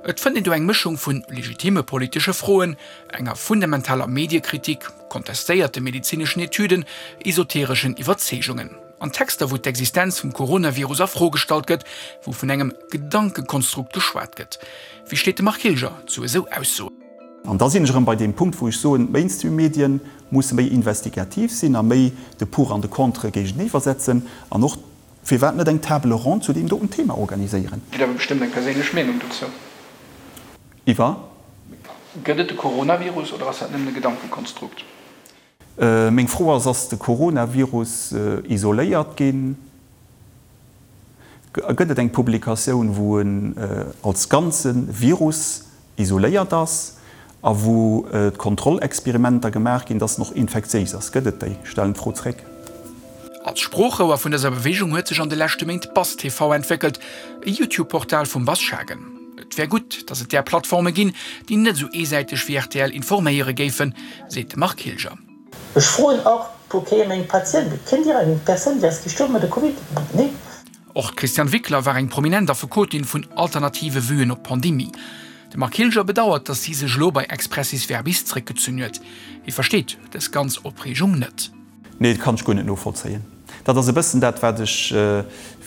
Et fënnt een do eng Mëschung vu legitimme politesche Froen, enger fundamentaler Mediekritik, kontestéierte medezineschen Etüden, esotereschen Iwwerzeegungen. An Texter, wou d'Existenz vum Coronavirus a Fro gestallt gëtt, wou vun engem Gedankekonstrukt geschwat gëtt. Wéi steet de Marc Hilger zu esou Aussoen? An da sinn ech erëm bei deem Punkt, wou ech soen, d'Mainstream-Medien musse méi investigativ sinn a méi de Pour an de Contre géigeniwwer setzen an och, firwat net eng Table ronde zu deem doten Thema organiséieren. Dir hutt awer bestëmmt eng perséinlech Meenung dozou. Iwwer? Gëtt et de Coronavirus oder ass dat nëmmen e Gedankekonstrukt? Meng Fro ass, Ass de Coronavirus isoléiert ginn? Gëtt et eng Publikatioun, wou en als ganze Virus isoléiert ass a wou d'Kontrollexperimenter gemaach ginn, dass en och infektiéis ass? Gëtt et déi? Ech stellen d'Fro zréck. Als Sproochrouer vun dëser Beweegung huet sech an de leschte Méint Bass TV entwéckelt, e YouTube-Portal vum Bass Schagen. Et wär gutt, datt et där Plattforme ginn, déi net esou eesäiteg wéi rtl informéiere géifen, seet de Marc Hilger. Ech froen och pour kéier meng Patienten, Kennt Dir eng Persoun, déi ass gestuerwen mat der Covid? Nee. Och d'Christiane Wickler war eng prominent Affekotin vun alternative Vuen op d'Pandemie. De Marc Hilger bedauert, datt si sech elo bei Expressis Verbis zréckgezunn huet. Hie versteet dës ganz Opreegung net. Nee, dat kann ech guer net novollzéien. Dat ass e bëssen dat, wat ech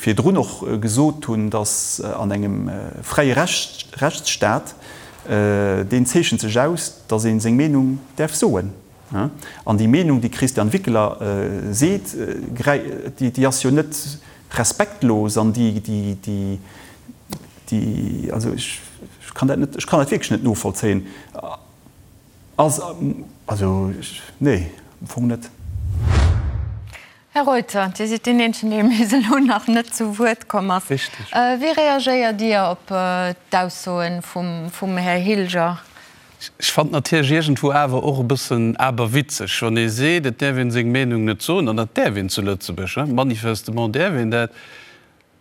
virdrun och gesot hunn, dass an engem fräie Rechtsstaat, deen zeechent sech aus, dass ee seng Meenung däerf soen. An déi Meenung, déi d'Christiane Wickler seet, déi ass jo net respektlos an déi, déi, also ech kann dat net, ech kann dat wierklech net novollzéien. Ass, also nee, am Fong net. Här Reuter, Dir sidd deen eenzegen, dee bis elo nach net zu Wuert komm ass. Wéi reagéiert Dir op d'Aussoe vum Här Hilger? Ech fannen natierlech iergendwou awer och e bëssen aberwitzeg, wann ee seet, et däerf een seng Meenung net soen, an dat däerf een zu Lëtzebuerg, manifestement däerf een dat.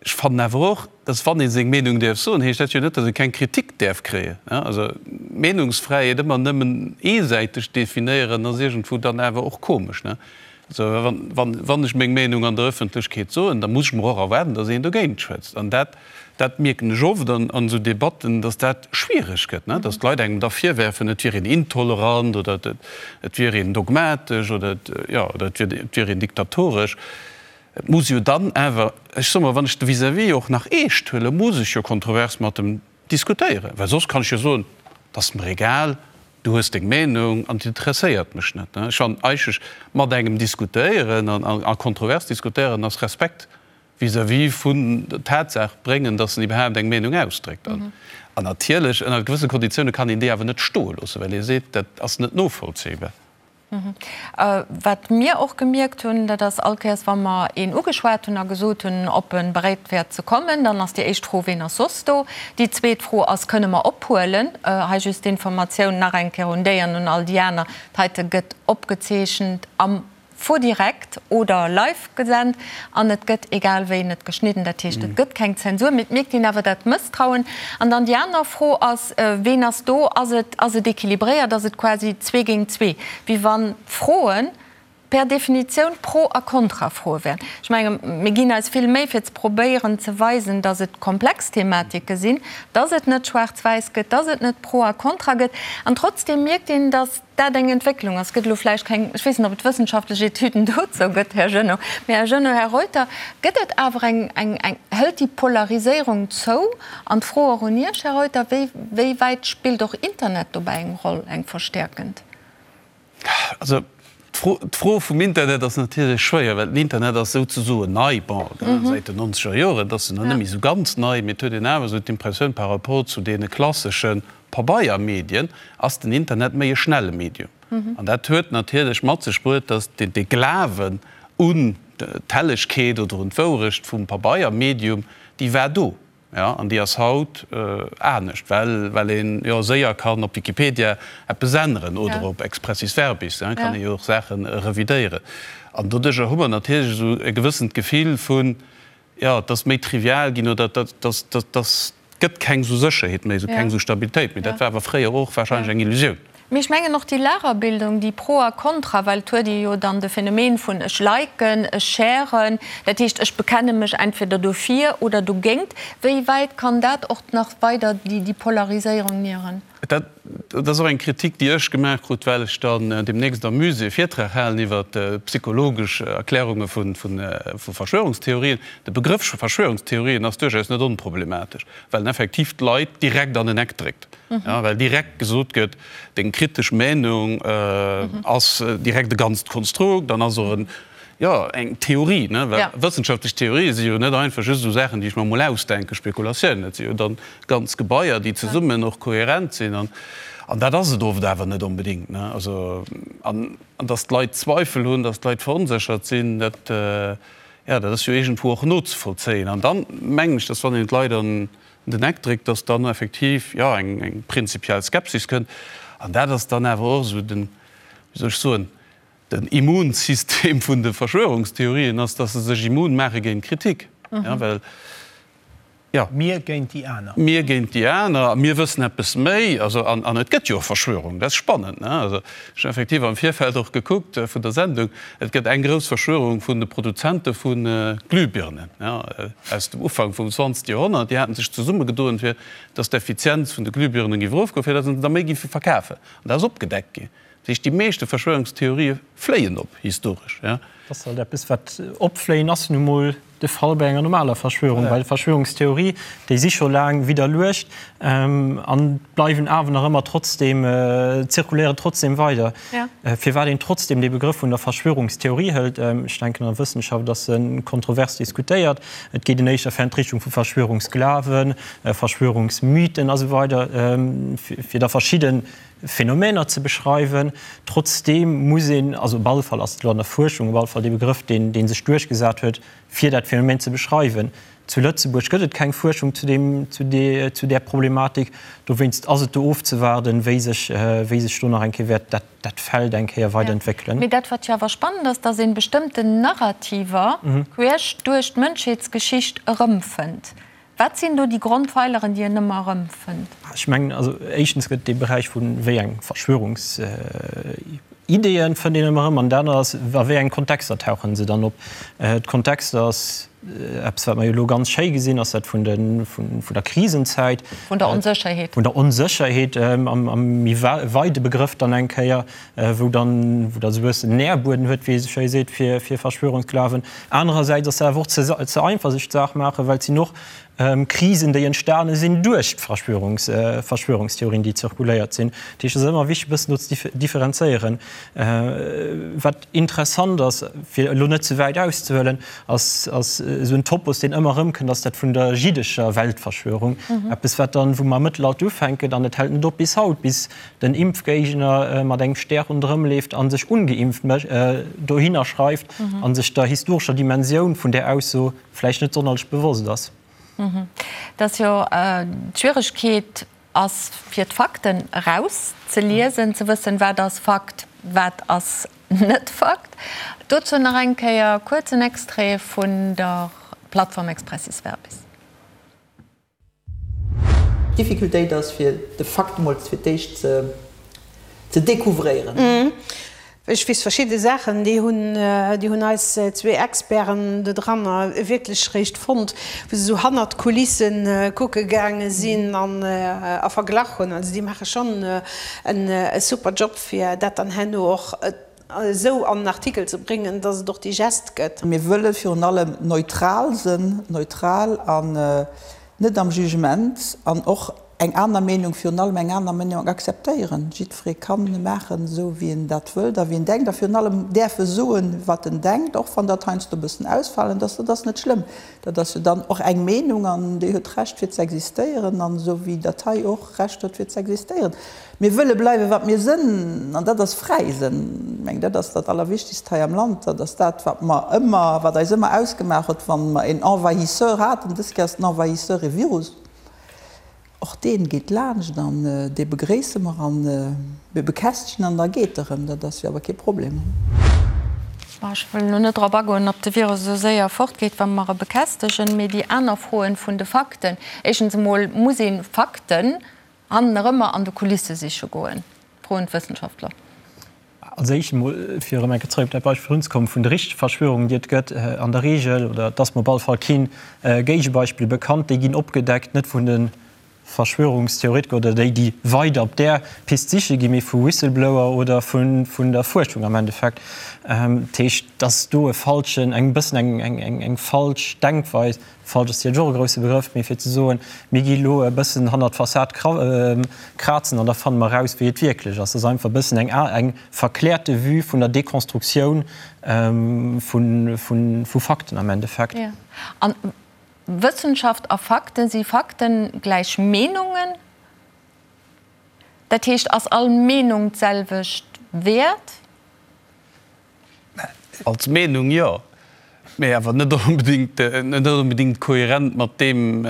Ech fannen awer och, dass wann ee seng Meenung däerf soen, heescht dat jo net, dass ee keng Kritik däerf kréien. Also d'Meenungsfräiheet ëmmer nëmmen eesäiteg definéieren, ass iergendwou dann awer och komesch. Also wann ech meng Meenung an der Ëffentlechkeet soen, da muss ech mer och erwaarden, dass een dogéint schwätzt. An dat, dat mierken ech oft an esou Debatten, dass dat schwiereg gëtt, dass d'Leit engem da virwerfen, et wier een intolerant oder et wier een dogmatesch oder jo, oder et wier een diktatoresch. Et muss jo dann awer, ech soe mol, wann ech de Vis-à-vis och nach eescht huelen, muss ech jo kontrovers mat em diskutéieren, well soss kann ech jo soen, et ass mer egal, du hues deng Meenung an et interesséiert mech net. Ech fannen eigentlech, mat engem diskutéieren a kontrovers diskutéieren ass Respekt vis-à-vis vun der Tatsaach bréngen, datt en iwwerhaapt eng Meenung ausdréckt. An natierlech ënner gewësse Konditioune kann een déi awer net stoe loossen, well ee seet, dat ass net novollzéibar. Wat mir och gemierkt hunn, dat ass, all Kéiers wa mer een ugeschwat hunn a gesot hunn, ob e bereet wär ze kommen, dann ass déi éischt Fro, Ween ass soss do? Déi zweet Fro ass, Kënne mer ophuelen? Hei just d'Informatioun nach eng Kéier un déi an un all déi aner, D'heite gëtt opgezeechent am Faux-direct oder live gesent an et gëtt egal wéi net geschnidden. Dat heescht, et gëtt keng Zensur, mee et mierkt een awer dat Mësstrauen. An dann déi aner Fro ass, Ween ass do? Ass et, ass et équilibréiert? Ass et quasi zwee géint zwee, wéi wann d'Froe per Definitioun Pro a Kontrafroe wären? Ech menge mir ginn eis vill Méi fir ze probéieren ze weisen, datt et komplex Thematike sinn, datt et net schwaarz-wäiss gëtt, datt et net Pro a Kontra gëtt. An trotzdeem mierkt een, datt dat eng Entwécklung ass. Gëtt elo vläicht keng, ech weess net, ob et wëssenschaftlech Etüden dozou gëtt, Här Genot, mä Här Genot, Här Reuter, gëtt et awer eng, eng, eng, hëlt déi Polariséierung zou? An d'Fro och un Iech, Här Reuter, wéi, wéi wäit spillt och Internet dobäi eng Roll, eng verstäerkend? Also d'Fro, d'Fro vum Internet ass natierlech schwéier, well den Internet ass souzesoen nei, bon, säit den nonzeger Joren, et ass nach net méi esou ganz nei, mee et huet een awer esou d'Impressioun par rapport zu deene klassesche Pabeiermedien ass den Internet méi e schnelle Medium. An dat huet natierlech mat sech bruet, datt de Glawen un d'Hellegkeet oder un d'Wourecht vum Pabeiermedium, déi war do, jo, an déi ass haut anescht, well well een jo séier kann op Wikipedia eppes änneren oder op Expressis Verbis, kann ee jo och Saache revidéieren. An doduercher hu mer natierlech esou e gewëssent Gefill vun, jo, et ass méi trivial ginn oder et ass, et gëtt keng esou Sécherheet méi, esou keng esou Stabilitéit méi. Dat war awer fréier och wahrscheinlech eng Illusioun. Mee ech mengen och déi Lagerbildung, déi Pro a Kontra, well et huet ee jo dann de Phänomen vun ech liken, ech sharen, dat heescht ech bekenne mech entweder dofir oder dogéint. Wéi wäit kann dat och nach weider déi Polariséierung nieren? Dat ass och eng Kritik, déi ech gemaach krut, well ech dann deemnächst am Musée e Virtrag halen iwwer psychologesch Erklärunge vu Verschwörungstheorien. De Begrëff Verschwörungstheorien ass duerchaus net onproblematesch, well en effektiv d'Leit direkt an en Eck dréckt, well direkt gesot gëtt, deng kritesch Meenung ass direkt e ganzt Konstrukt an ass och en Jo, eng Theorie, ne? Well wëssenschaftlech Theorië si jo net einfach just esou Saachen, déi ech mer emol ausdenken, Spekulatiounen. Dat si jo dann ganz Gebaier, déi zesummen och kohärent sinn. An, an dat ass et oft awer net onbedéngt, ne? Also, an, an datt d'Leit Zweifel hunn, datt d'Leit veronséchert sinn, dat, jo, dat ass jo iergendwou och nozevollzéien. An dann mengen ech, datt wann een d'Leit an den Eck dréckt, datt dann effektiv, jo, eng, eng prinzipiell Skepsis kënnt. An dat ass dann awer och esou den, wéi soll ech soen, Den Immunsystem vun de Verschwörungstheorien ass, dass se sech immun maache géint Kritik. Ja, well, ja. Mir géint déi aner. Mir géint déi aner a mir wëssen eppes méi. Also, an, an et gëtt jo och Verschwörungen, dat ass spannend, ne? Also, ech hunn effektiv am Virfeld och gekuckt vun der Sendung, et gëtt eng grouss Verschwörung vun de Produzente vu Glühbirnen, ja, aus dem Ufank vum 20. Joerhonnert. Déi haten sech zesummegedoen, fir dass d'Effizienz vun de Glühbirnen géif erofgoen, fir dass se der méi géife verkafen. An dat ass opgedeckt ginn. Dat heescht, déi meeschte Verschwörungstheorië fléien op, historesch. Dat ass halt eppes, wat opfléien ass nu mol de Fall bei enger normaler Verschwörung. Well Verschwörungstheorie, déi si scho laang widderluecht an bleiwen awer nach ëmmer trotzdem, zirkuléieren trotzdem weider. Firwat een trotzdem dee Begrëff vun der Verschwörungstheorie hëlt, ech denken an der Wëssenschaft ass e kontrovers diskutéiert. Et geet en éischter fir an d'Richtung vu Verschwörungsglawen, Verschwörungsmythen a sou weider, fir da verschidde Phänomener ze beschreiwen. Trotzdeem muss een, also op alle Fall ass et elo an der Fuerschung op alle Fall dee Begrëff, deen, dee sech duerchgesat huet, fir dat Phänomen ze beschreiwen. Zu Lëtzebuerg gëtt et keng Fuerschung zu deem, zu deer, zu där Problematik. Dowéinst ass et do ofzewaarden, wéi sech, wéi sech do nach eng Kéier wäert dat, dat Feld eng Kéier weiderentwéckelen. Mee dat, wat jo awer spannend ass, dass ee bestëmmten Narrativer queesch duerch d'Mënschheetsgeschicht erëmfënnt. Wat sinn do déi Grondpfeileren, déi een ëmmer erëmfënnt? Ech mengen, also éischtens gëtt dee Beräich vu wéi eng Verschwörungsideeën fënnt een ëmmer erëm an dat anert ass, a wéi engen Kontexter tauche se dann op. D'Kontexter ass eppes, wat mer jo elo ganz schéi gesinn, ass dat vun de, vun der Krisenzäit. Vun der Onsécherheet. Vun der Onsécherheet am méi weide Begrëff dann eng Kéier, wou dann, wou da sou e bëssen Nährbueden huet, wéi ee sou schéi seet, fir, fir Verschwörungsglawen. Anerersäits ass dat awer och ze, ze einfach sech d'Saach maachen, well et sinn och Krisen, déi entstane sinn duerch d'Verschwörungs, Verschwörungstheorien, déi zirkuléiert sinn. Dat heescht, et ass ëmmer wichteg e bëssen do ze differenzéieren. Wat interessant ass, fir elo net ze wäit auszehuelen, ass, ass esou en Topos, deen ëmmer erëmkënnt, ass dat vun der jiddescher Weltverschwörung. Eppes, wat dann, wou mer am Mëttelalter ufänken an et hält net op bis haut, bis den Impfgéigner mat engem Stär ronderëm leeft a sech ungeimpft dohinner schreift a sech der historescher Dimensioun vun där Ausso vläicht net sonnerlech bewosst ass. Et ass jo d'Schwieregkeet ass fir d'Fakten eraus ze liesen, ze wëssen, wat ass Fakt, wat ass net Fakt. Dozou nach eng Kéier kuerz en Extrait vun der Plattform Expressis Verbis. D'Difficultéit ass fir de Fakt emol fir d'éischt ze découvréieren. Ech weess verschidde Saachen, déi hunn, déi hunn eis zwee Experten do dranner wierklech réischt fonnt, wou se esou hannert d'Kulisse kucke gaange sinn an a verglach hunn. Also déi maache schonn e super Job, fir dat dann herno och esou an en Artikel ze bréngen, dass et och digest gëtt. Mir wëlle virun allem neutral sënn, neutral an net am Jugement an och eng aner Meenung, virun allem eng aner Meenung akzeptéieren. Jiddweree kann maachen, esou wéi en dat wëllt a wéi en denkt a virun allem däerf e soen, wat en denkt, och wann dat heiansdo e bëssen ausfalend ass. Dat ass net schlëmm. Dat ass jo dann och eng Meenung an déi huet d'Recht fir z'existéieren an esou wéi dat hei och Recht huet fir z'existéieren. Mir wëlle bleiwe wat mir sënn, an dat ass fräi sënn. Ech mengen, dat ass dat Allerwichtigst hei am Land. Dat ass dat, wat mer ëmmer, wat eis ëmmer ausgemaach huet, wann mer een Envahisseur haten. Dës Kéier ass den Envahisseur e Virus. Och dee geet laanscht an dee begréisse mer an mir bekästegen an da geet e rëm. Dat ass jo awer kee Problem. Bon, ech wëll elo net drop agoen, ob de Virus esou séier fortgeet, wa mer e bekästegen, mee déi aner Froen vun de Fakten. Éischtens emol muss ee Fakten Hannen erëmmer an de Kulisse siche goen? Froen d'Wëssenschaftler. Als éischt emol, fir erëm eng Kéier zrëck op dat Beispill virdrun ze kommen, vun de richtege Verschwörungen, déi et gëtt, an der Regel, oder et ass mer op alle Fall keen Géigebeispill bekannt, déi ginn opgedeckt net vun de Verschwörungstheoretiker oder déi, déi weider op där Pist siche ginn, mee vu Whistleblower oder vun der Fuerschung am Endeffekt. Dat heescht, dass do e falschen, eng bëssen eng falsch Denkweis Falsch ass jo och e grousse Begrëff, mee fir ze soen, mir gi elo e bëssen hannert d'Fassad krazen an da fanne mer eraus, wéi et wierklech ass, dat ass einfach e bëssen eng eng verkläerte Vue vun der Dekonstruktioun vu Fakten am Endeffekt. Jo. An Wëssenschaft a Fakten, si Fakten gläich Meenungen? Dat heescht, ass all Meenung d'selwecht wäert? Als Meenung jo, mee awer net onbedéngt, net onbedéngt kohärent mat deem,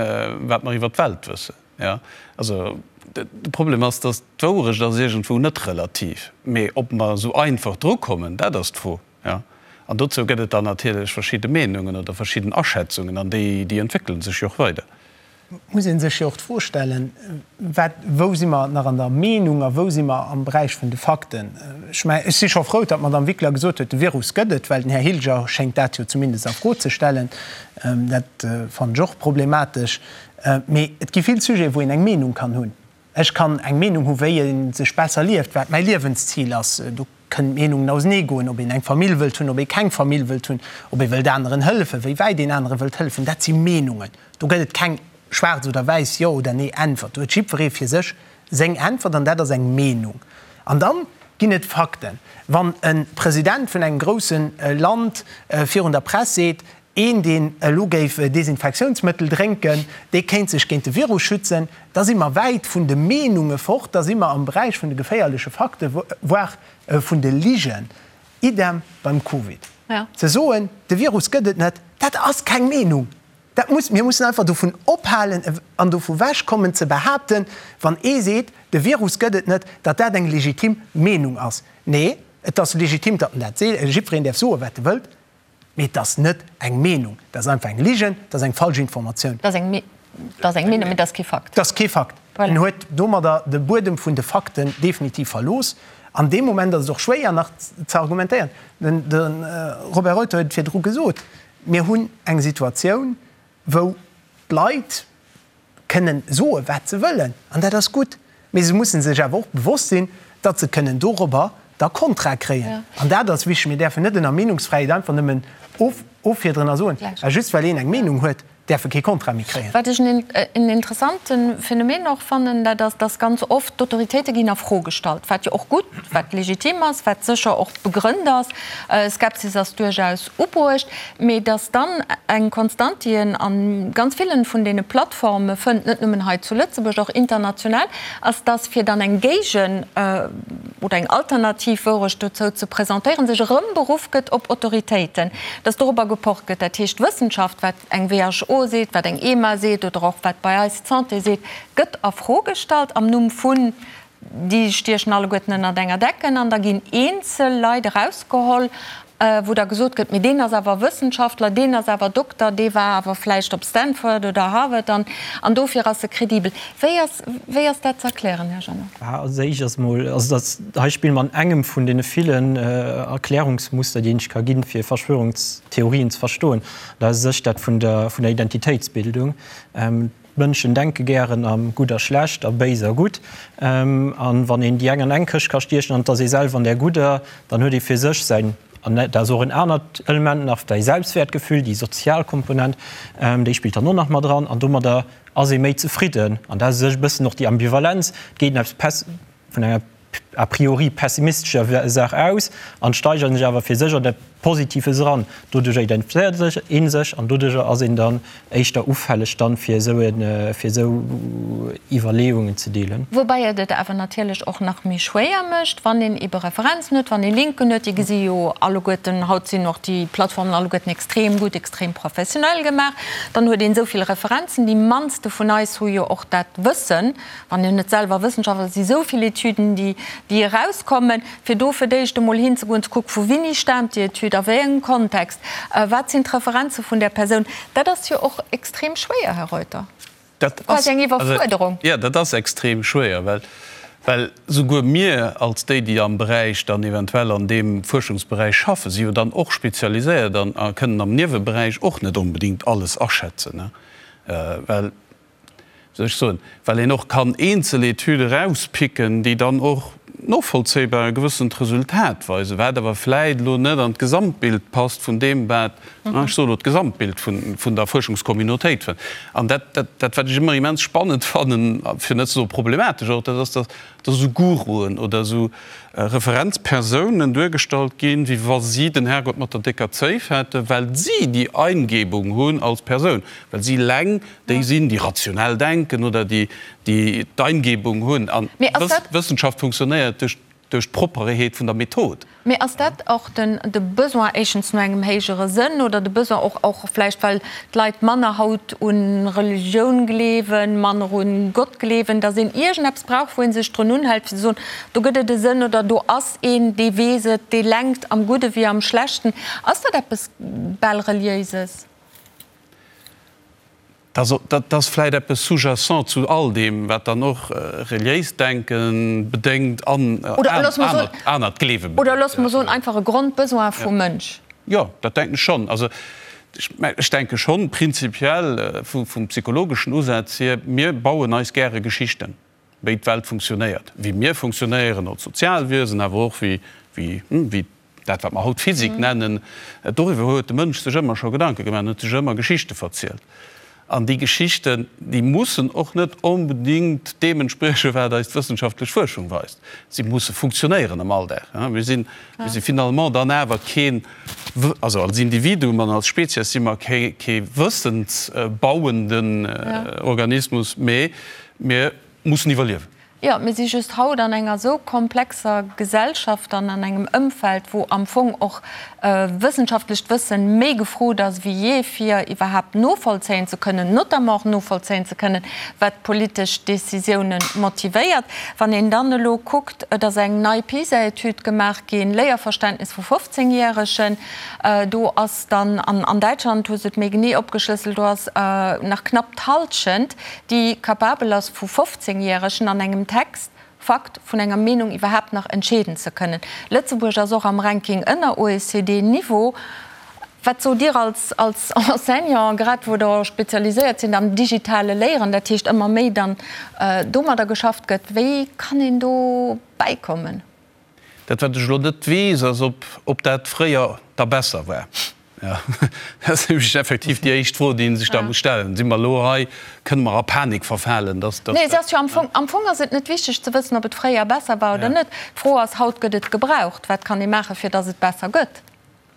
wat mer iwwer d'Welt wëssen. Jo, also de Problem ass, datt d'Wourecht ass iergendwou net relativ, mee ob mer esou einfach drukommen, dat ass d'Fro. Jo, an dozou gëtt et dann natierlech verschidde Meenungen oder verschidden Aschätzungen an déi, déi entwéckele sech jo och weider. muss ee sech jo och d'Fro stellen, wat, wou si mer nach an der Meenung a wou si mer am Beräich vun de Fakten? Ech mengen, ech si scho frou, datt d'Madame Wickler gesot huet, de Virus gëtt et, well den Här Hilger schéngt dat jo zumindest a Fro ze stellen. Dat fannen ech och problematesch. Mee et gi vill Sujeten, wou een eng Meenung kann hunn. Ech kann eng Meenung hu wéi ee sech besser lieft, wat mäi Liewenszil ass. Do kënnen d'Meenungen ausenee goen, ob een eng Famill wëllt hunn, ob ee keng Famill wëllt hunn, ob ee wëllt aneren hëllefen, wéi wäit een anere wëllt hëllefen. Dat si Meenungen. Do gëtt et keng schwaarz oder wäiss Jo oder Nee Äntwert. Do huet jiddweree fir sech seng Äntwert an dat ass eng Meenung. An dann ginn et Fakten. Wann e President vun engem grousse Land virun der Press seet, Een, deen elo géif Desinfektiounsmëttel drénken, dee kéint sech géint de Virus schützen. Da si mer wäit vun de Meenunge fort, da si mer am Beräich vun de geféierleche Fakten, voire vun de Ligen. Idem beim Covid. Ze soen, de Virus gëtt et net, dat ass keng Meenung. Dat muss, mir mussen einfach dovun ophalen an dovu wechkommen ze behaapten, wann ee seet, de Virus gëtt et net, datt dat eng legitim Meenung ass. Nee, et ass legitim, datt en dat seet, jiddwereen däerf soen, wat e wëllt. Mee et ass net eng Meenung, dat ass einfach eng Ligen, dat ass eng falsch Informatioun. Dat ass eng Meenung, mee dat ass kee Fakt. Dat ass kee Fakt. En huet domadder de Buedem vun de Fakten definitiv verlooss. An deem Moment ass et och schwéier nach ze argumentéieren. De Robert Reuter huet et virdru gesot, Mir hunn eng Situatioun, wou d'Leit, kënnen soe wat se wëllen, an dat ass gutt, mee se musse sech awer och bewosst sinn, datt se kënnen dorobber da Kontra kréien. An dat ass wichteg. Mir däerfen net ënner Meenungsfräiheet einfach nëmmen offiederen a soen, just well een eng Meenung huet, däerf e kee Kontra méi kréien. Wat ech en interessante Phänomen och fannen, dat ass, datt ganz oft d'Autoritéite ginn a Fro gestallt, wat jo och gutt, wat legitim ass, wat sécher och begrënnt ass. Skepsis ass duerchaus ubruecht, mee datt dann eng Konstant, déi een a ganz villen vun deene Plattforme fënnt, net nëmmen hei zu Lëtzebuerg, och international, ass, datt fir dann eng Géigen oder eng alternativ Wourecht dozou ze presentéieren, sech erëm beruff gëtt op Autoritéiten, datt dorobber gepocht gëtt. Dat heescht, d'Wëssenschaft, wat eng WHO seet, wat eng EMA seet oder och wat bei eis d'Santé seet, gëtt a Fro gestallt am Numm vun Déi stiechen alleguerten ënnert enger Decken an da ginn eenzel Leit erausgeholl, wou da gesot gëtt, mee deen ass awer Wëssenschaftler, deen ass awer Dokter, dee war awer vläicht op Stanford oder Harvard an an dofir ass e kredibel. Wéi ass, wéi ass dat ze erklären, Här Jeannot? Als éischt ass emol, also dat hei spille mer an engem vun deene villen Erklärungsmuster, déi een sech ka ginn, fir Verschwörungstheorien ze verstoen. Dat ass u sech dat vun der, vun der Identitéitsbildung. D'Mënschen denke gären a gutt a schlecht, a béis a gutt. A wann een déi eng an eng Këscht ka stiechen an et ass ee selwer an där gudder, dann huet ee fir sech säin, an dat ass och en anert Element nach, säi Selbstwäertgefühl, déi sozial Komponent, déi spillt dann och nach mat eran an domadder ass ee méi zefridden. An dat ass u sech e bëssen och déi Ambivalenz, et geet een eppes vun enger a priori pessimistescher Saach aus an steigert sech awer fir sech an dat Positives eran. Doduercher identifizéiert sech ee sech an doduercher ass een dann éischter ufälleg dann fir esou e fir esou Iwwerleeungen ze deelen. Woubäi et et awer natierlech och nach méi schwéier mécht, wann een ebe Referenzen huet, wann ee Linken huet. Déi gesi jo alleguerten, haut sinn och déi Plattformen alleguerten extrem gutt, extrem professionell gemaach. Dann huet een esou vill Referenzen. Déi mannste vun eis hu jo och dat Wëssen, Wann een net selwer Wëssenschaftler ass, si sou vill Etüden, déi, déi erauskommen, fir do fir d'éischt emol hinzegoen, ze kucken, vu wini staamt déi Etüd, a wéi engem Kontext, wat sinn d'Referenze vun där Persoun. Dat ass jo och extrem schwéier, Här Reuter. Dat ass, Quasi eng Iwwerfuerderung. jo, dat ass extrem schwéier, well, well souguer mir als déi, déi am Beräich dann eventuell an deem Fuerschungsberäich schaffen, si jo dann och spezialiséiert an a kënnen am Nieweberäich och net onbedéngt alles aschätzen, well, soll ech soen, well een och kann eenzel Etüde erauspicken, déi dann och novollzéibar e gewëssent Resultat weisen, wat awer vläit elo net an d'Gesamtbild passt vun deem, wat, ech soe elo d'Gesamtbild vun der Fuerschungscommunautéit fënnt. An dat, dat wat ech ëmmer immens spannend fannen, fir net ze soe problematesch och, dat ass, datt dass esou Guruen oder esou Referenzpersounen duergestallt ginn, wéi wa si den Herrgott mat der décker Zéif hätten, well si déi Eingebung hunn als Persoun, well si eleng déi sinn, déi rationell denken oder déi déi d'Eingebung hunn. An Wëssenschaft funktionéiert duerch duerch d'Proppereheet vun der Method. Mee ass dat och den de Besoin éischtens no engem héijere Sënn oder de Besoin och och vläicht well d'Leit manner haut u Religioun gleewen, manner u Gott gleewen, datt een iergendeppes brauch, wou ee sech drun unhält fir ze soen, do gëtt et e Sënn oder do ass een, dee weess et, dee lenkt am Gudde wéi am Schlechten. Ass dat eppes bal Reliéises? Dat ass vläit eppes sous-jacent zu all deem, wat dann och reliéist Denke bedéngt an anert Gleewe bedéngt. Oder loosse mer soen, einfach e Grondbesoin vum Mënsch. Jo, dat denken ech schonn. Also ech denke schonn prinzipiell vum psychologeschen Usaz hier, mir bauen eis gäre Geschichten. wéi d'Welt funktionéiert, wéi mir funktionéieren als Sozialwiesen, awer och wéi, wéi, wéi dat, wat mer haut Physik nennen. Doriwwer huet de Mënsch sech ëmmer scho Gedanke gemaach an huet sech ëmmer Geschichte verzielt. An déi Geschichten, déi mussen och net onbedingt deem entspriechen, wat eis d'wëssenschaftlech Fuerschung weist. Si musse funktionéieren am Alldag. Mir sinn, mir si finalement dann awer keen, also als Individuum an als Spezies si mer kee, kee wëssensbauenden Organismus, mee mir mussen iwwerliewen. Jo, mir si just haut an enger esou komplexer Gesellschaft an an engem Ëmfeld, wou am Fong och wëssenschaftlecht Wëssen méi gefrot ass wéi jee, fir iwwerhaapt novollzéien ze kënnen, notamment och novollzéien ze kënnen, wat politesch Décisiounen motivéiert. Wann een dann elo kuckt, et ass eng nei PISA-Etüd gemaach ginn, Léierverständnis vu 15 Järegen, do ass dann, an Däitschland hu se et méi genee opgeschlësselt, do ass nach knapp d'Hallschent, déi capabel ass vu 15 Järegen an engem Text Fakt vun enger Meenung iwwerhaapt nach entscheeden ze kënnen. Lëtzebuerg ass och am Ranking ënner OECD-Niveau. Wat sot Dir als als Enseignant, grad wou Der spezialiséiert sidd am digitale Léieren, dat heescht ëmmer méi dann domadder geschafft gëtt, wéi kann een do bäikommen? Dat wat ech elo net weess, ass ob ob dat fréier da besser war. Jo, dat ass nämlech effektiv déi éischt Fro, déi ee sech da muss stellen. Si mer elo hei, kënne mer a Panik verfalen, dass, dass Nee, et ass jo am Fong, am Fong ass et net wichteg ze wëssen, ob et fréier besser war oder net. D'Fro ass, haut gëtt et gebraucht, wat kann ee maachen, fir dass et besser gëtt?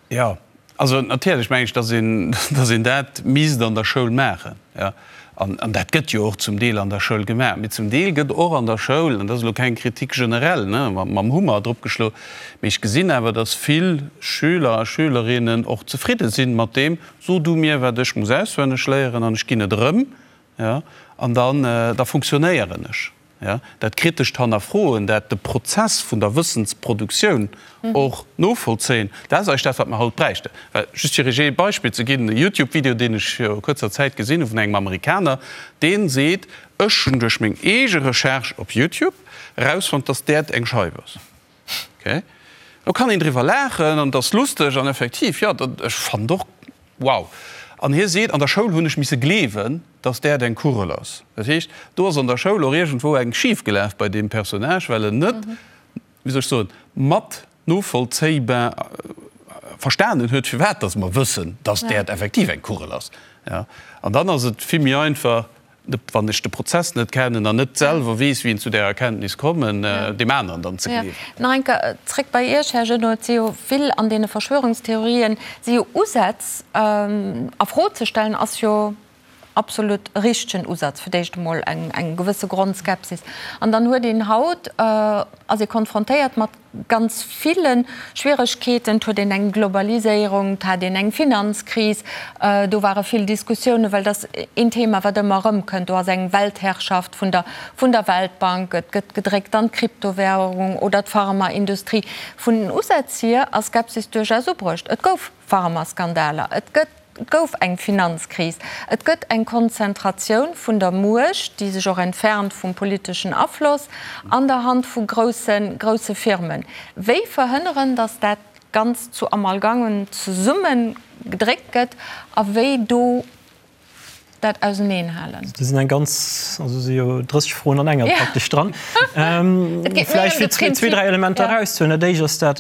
Jo, also natierlech meng ech, dass een, dass een dat misst an der Schoul maachen, jo. An, an dat gëtt jo och zum Deel an der Schoul gemaach. Mee zum Deel gëtt och an der Schoul, an dat ass elo keng Kritik generell, ne, mam Hummer dropgeschlo, mee ech gesinn awer, dass vill Schüler a Schülerinnen och zefridde sinn mat deem, So du mir, wat ech muss auswenneg léieren, an ech ginn et erëm, jo, an dann, da funktionéieren ech. Jo, dat kritescht Hannerfroen, dat de Prozess vun der Wëssensproduktioun och novollzéien, dat ass eigentlech dat, wat mer haut bräichten. Well, just fir Iech ee Beispill ze ginn, e Youtube-Video, deen ech viru kuerzer Zäit gesinn hu vun engem Amerikaner, dee seet, Ech hunn duerch meng eege Recherche op Youtube erausfonnt, dass d'Äerd eng Scheif ass. Ok, do kann een driwwer laachen an et ass lusteg an effektiv, jo, ech fannen et och wow. An hie seet, an der Schoul hunn ech misse gleewen, dass d'Äerd eng Kugel ass. Dat heescht, do ass an der Schoul och iergendwou eng schif gelaf bei deem Personnage, well en net, wéi soll ech soen, mat novollzéibar verstanen huet, firwat dass mer wëssen, dass d'Äerd effektiv eng Kugel ass. An dann ass et vill méi einfach, wann ech de Prozess net kennen an net selwer weess, wéi een zu där Erkenntnis kommen, deem aneren dann ze gleewen. Nach eng Kéier zréck bei Iech, Här Genot. Et si jo vill an deene Verschwörungstheorien si jo Usätz a Fro ze stellen, ass jo absolut e richtegen Usaz, fir d'éischt emol eng eng gewësse Grondskepsis. An dann huet een haut, ass ee konfrontéiert mat ganz ville Schwieregkeeten. Et huet een eng Globaliséierung, et hat een eng Finanzkris, do ware vill Diskussiounen, well dat ass een Thema, wat ëmmer erëmkënnt. Do ass eng Weltherrschaft vun der vun der Weltbank, et gëtt gedréckt an d'Kryptowährung oder d'Pharmaindustrie. Vun den Usätz hier ass Skepsis duerchaus ubruecht. Et gouf Pharmaskandaler, et gëtt, et gouf eng Finanzkris, et gëtt eng Konzentratioun vun der Muecht, déi sech och entfernt vum politeschen Afloss, an der Hand vu grousse, grousse Firmen. Wéi verhënneren, datt dat Ganzt zu Amalgamen zesumme gedréckt gëtt a wéi do dat auseneenhalen? Do sinn eng ganz, also si jo 30 Froen an enger praktesch dran. Vläicht fir zwee, dräi Elementer erauszehuelen. Dat éischt ass dat,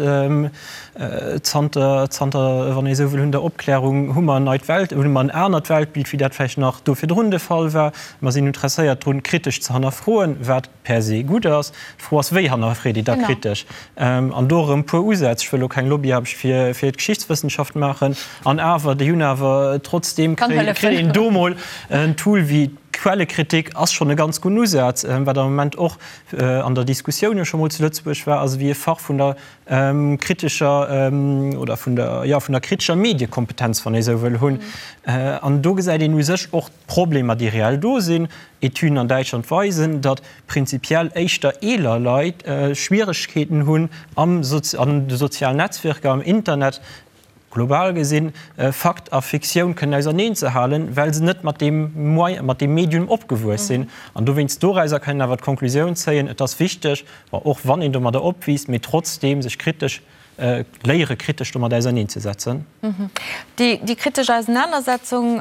zanter, zanter, wann ee esou wëll, hunn der Opklärung hu mer en neit Welt, hunn mer en anert Weltbild, wéi dat vläicht nach do virdrun de Fall war. Mer sinn interesséiert drun, kritesch ze hannerfroen, wat per se gutt ass. D'Fro ass, wéi hannerfreet ee da kritesch? An do erëm e puer Usätz. Ech wëll elo keng Lobbyaarbecht fir fir d'Geschichtswëssenschaft maachen. An awer, déi hunn awer trotzdeem kritt een do mol en Tool wéi d'Quellekritik ass schonn e ganz gudden Usaz, wat am Moment och an der Diskussioun jo scho mol zu Lëtzebuerg war, ass ewéi e Fach vun der kritescher oder vun der, jo, vun der kritescher Mediekompetenz, wann ee esou wëll, hunn. An do gesäit een u sech och, D'Problemer, déi reell do sinn, Etüden an Däitschland weisen, datt prinzipiell éischter eeler Leit Schwieregkeeten hunn am an de sozialen Netzwierker, am Internet, global gesinn, Fakt a Fiktioun kënnen auserneen ze halen, well se net mat deem Moyen, mat deem Medium opgewuess sinn. An dowéinst dorauser kann een awer d'Konklusioun zéien, et ass wichteg, bon, och wann een domadder opwiisst, mee trotzdeem sech kritesch. Léiere kritesch domat auserneenzesetzen. Déi kritesch Ausenanersetzung,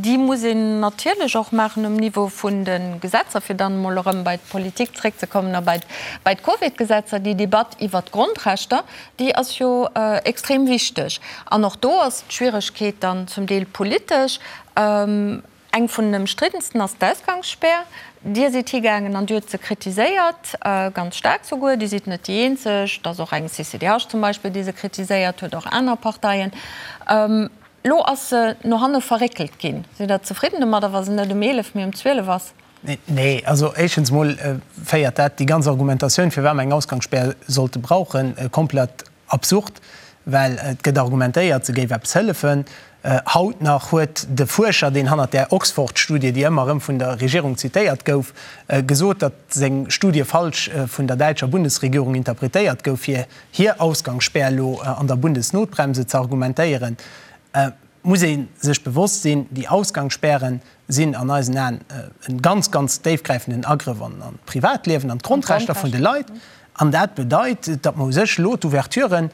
déi muss een natierlech och maachen um Niveau vun de Gesetzer, fir dann emol erëm bei d'Politik zréckzekommen a bei d'Covid-Gesetzer. Déi Debatt iwwert d'Grondrechter, déi ass jo extrem wichteg. An och do ass d'Schwieregkeet dann zum Deel politesch. Eng vun den ëmstriddensten ass d'Ausgangsspär. Dir sidd higaangen an Dir hutt se kritiséiert, ganz staark souguer. Dir sidd net déi eenzeg, et ass och eng CCDH zum Beispill, déi se kritiséiert huet, och aner Parteien. Elo ass se no hanne verréckelt ginn. Sidd Der zefridden domadder, wa se net um 11, mee um 12 ass? Nee, also éischtens emol féiert dat déi ganz Argumentatioun, firwat mer eng Ausgangsspär sollte brauchen, komplett Absurd, well et gëtt argumentéiert, se géif eppes hëllefen. Haut nach huet de Fuerscher, deen hannert där Oxford-Studie, déi ëmmer erëm vun der Regierung zitéiert gouf, gesot, datt seng Studie falsch vun der däitscher Bundesregierung interpretéiert gouf, fir hir Ausgangsspär elo an der Bundesnotbremse ze argumentéieren. Muss ee sech bewosst sinn, déi Ausgangsspären sinn an eisen Aen e ganz, ganz déifgräifenden Agrëff an d'Privatliewen, an d'Grondrechter vun de Leit. An dat bedeit, datt mer u sech elo d'Ouverturen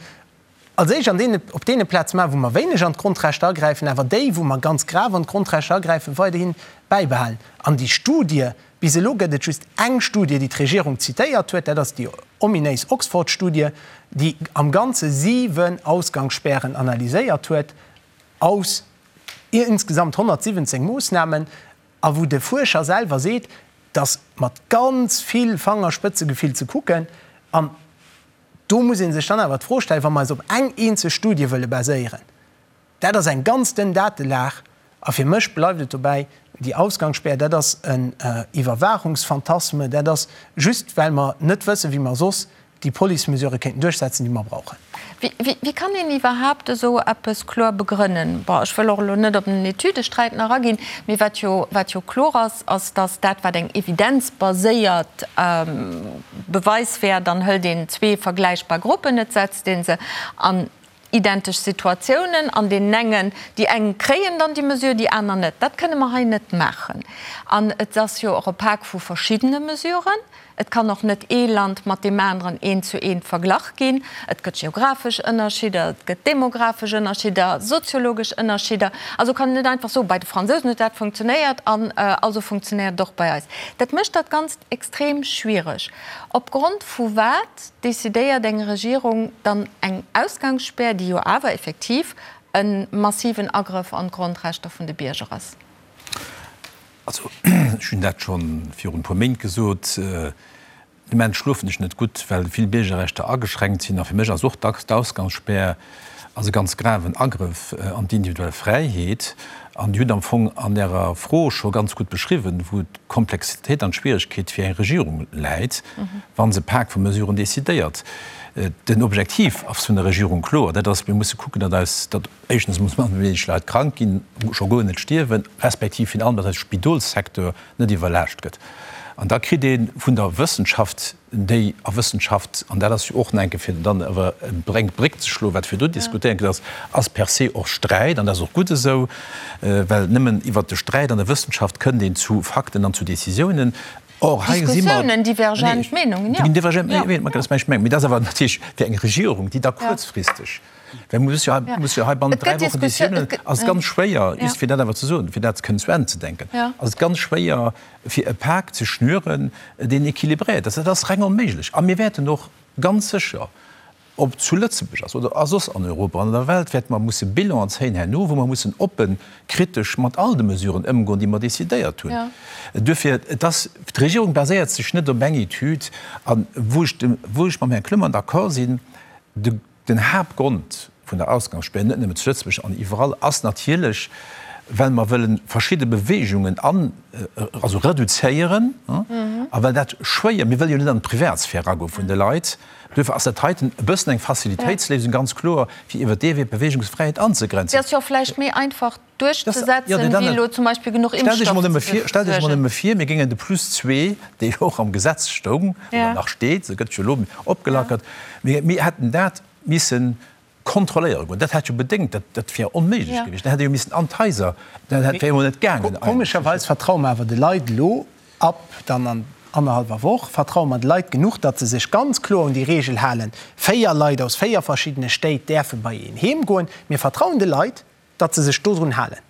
als éischt an deene, op deene Plaze maachen, wou mer wéineg an d'Grondrechter agräifen, awer déi, wou mer ganz grav an d'Grondrechter agräifen, weiderhi bäibehalen. An déi Studie, bis elo gëtt et just eng Studie, déi d'Regierung zitéiert huet, dat ass déi ominéis Oxford-Studie, déi am Ganze 7 Ausgangsspären analyséiert huet aus insgesamt 117 Moossnamen, a wou de Fuerscher selwer seet, dass mat ganz vill Fangerspëtzegefill ze kucken. An do muss ee sech dann awer d'Fro stellen, wa mer eis op eng eenzeg Studie wëlle baséieren, dat ass eng ganz dënn Datelag, a fir mech bleift et dobäi, déi Ausgangsspär, dat ass en Iwwerwaachungsphantasme, dat ass just, well mer net wëssen, wéi mer soss déi Police-Mesurë kéinten duerchsetzen, déi mer brauchen. Wéi kann een iwwerhaapt esou eppes kloer begrënnen? Bon, ech wëll och elo net op den Etüdesträit nach aginn, mee wat jo, wat jo kloer ass, ass, datt dat, wat eng evidenzbaséiert Beweis wär, dann hëlt een zwee vergläichbar Gruppen, et setzt ee se an identesch Situatiounen, an deenen engen, déi eng kréien dann déi Mesure, déi aner net. Dat kënne mer hei net maachen. An et ass jo och e Pak vu verschiddene Mesuren. Et kann och net ee Land mat deem aneren eent zu eent verglach ginn. Et gëtt geographesch Ënnerschidder, et gëtt demographesch Ënnerschidder, soziologesch Ënnerschidder. Also kann een net einfach soen, bei de Fransousen huet dat funktionéiert an also funktionéiert et och bei eis. Dat mécht dat Ganzt extrem schwiereg. Opgrond vu wat decidéiert eng Regierung dann eng Ausgangsspär, déi jo awer effektiv e massiven Agrëff an d'Grondrechter vun de Bierger ass? Also, ech hunn dat scho virun e puer Méint gesot, De Moment schlofen ech net gutt, well vill Biergerrechter ageschränkt sinn. A fir mech ass och d'Ausgangsspär ass e ganz graven Agrëff an d'individuell Fräiheet. An Dir hutt am Fong an Ärer Fro scho ganz gutt beschriwwen, wou d'Komplexitéit an d'Schwieregkeet fir eng Regierung läit, wa se e Pak vu Mesuren decidéiert. Den Objektiv ass vun der Regierung kloer, dat ass, mir musse kucken, datt eis, datt éischtens muss manner wéineg Leit krank ginn, scho guer net stierwen, respektiv virun allem, datt eise Spidolssecteur net iwwerlaascht gëtt. An da kritt ee vun der Wëssenschaft, déi a Wëssenschaft, an dat ass jo och nach eng Kéier, fir dann awer eng Bréck ze schloen, wat virdu diskutéiert ginn ass, ass per se och Sträit, an dat ass och gutt esou, well nëmmen iwwert de Sträit an der Wëssenschaft kënnt een zu Fakten an zu Décisiounen. Or, hei si mer. Diskussiounen, divergent Meenungen, jo. Divergent Meenungen, dat ass mäin Meng. Mee dat ass awer natierlech fir eng Regierung, déi da kuerzfristeg, well muss jo, muss jo hei bannent 3 Wochen Décisiounen, ass et ganz schwéier, just fir dat awer ze soen, fir dat kënnen zu Enn ze denken, ass et ganz schwéier, fir e Pak ze schnüren, deen équilibréiert ass. Dat ass reng onméiglech. A mir wäerten och ganz sécher, ob zu Lëtzebuerg ass oder a soss an Europa an der Welt, wäerte mer musse Bilanen zéien herno, wou mer mussen oppen, kritesch mat all de Mesuren ëmgoen, déi mer decidéiert hunn. Duerfir, et ass, d'Regierung baséiert sech net op eng Etüd. A wou ech dem, wou ech mam Här Clement d'accord sinn, de, Den Haaptgrond vun der Ausgangsspär, net nëmmen zu Lëtzebuerg an iwwerall, ass natierlech, well mer wëlle verschidde Beweegungen an, also reduzéieren, a well dat schwéier, mir wëlle jo net an d'Privatsphär eragoe vun de Leit. Duerfir ass dat heiten e bëssen eng Facilitéitsléisung, ganz kloer, fir iwwert dee Wee d'Beweegungsfräiheet anzegrenzen. Déi ass jo och vläicht méi einfach duerchzesetzen, wéi elo zum Beispill genuch Impfstoff ze besuergen. Stellt Iech emol nëmme vir, mir géingen de Plus zwee, dee jo och am Gesetz stoung oder nach steet, se gëtt jo elo opgelackert, mir hätten dat misse kontrolléiere goen. Dat hätt jo bedéngt, dat dat wier onméiglech gewiescht. Dat hätt ee jo missen an d'Haiser, dat wär emol net gaangen eigentlech. Komescherweis vertraue mer awer de Leit elo ab dann an. annerhallwer Woch, vertraue mer de Leit genuch, datt se sech ganz kloer un déi Reegel halen, 4 Leit aus 4 verschiddene Stéit däerfe bei een heem goen. Mir vertrauen de Leit, datt se sech dodrun halen,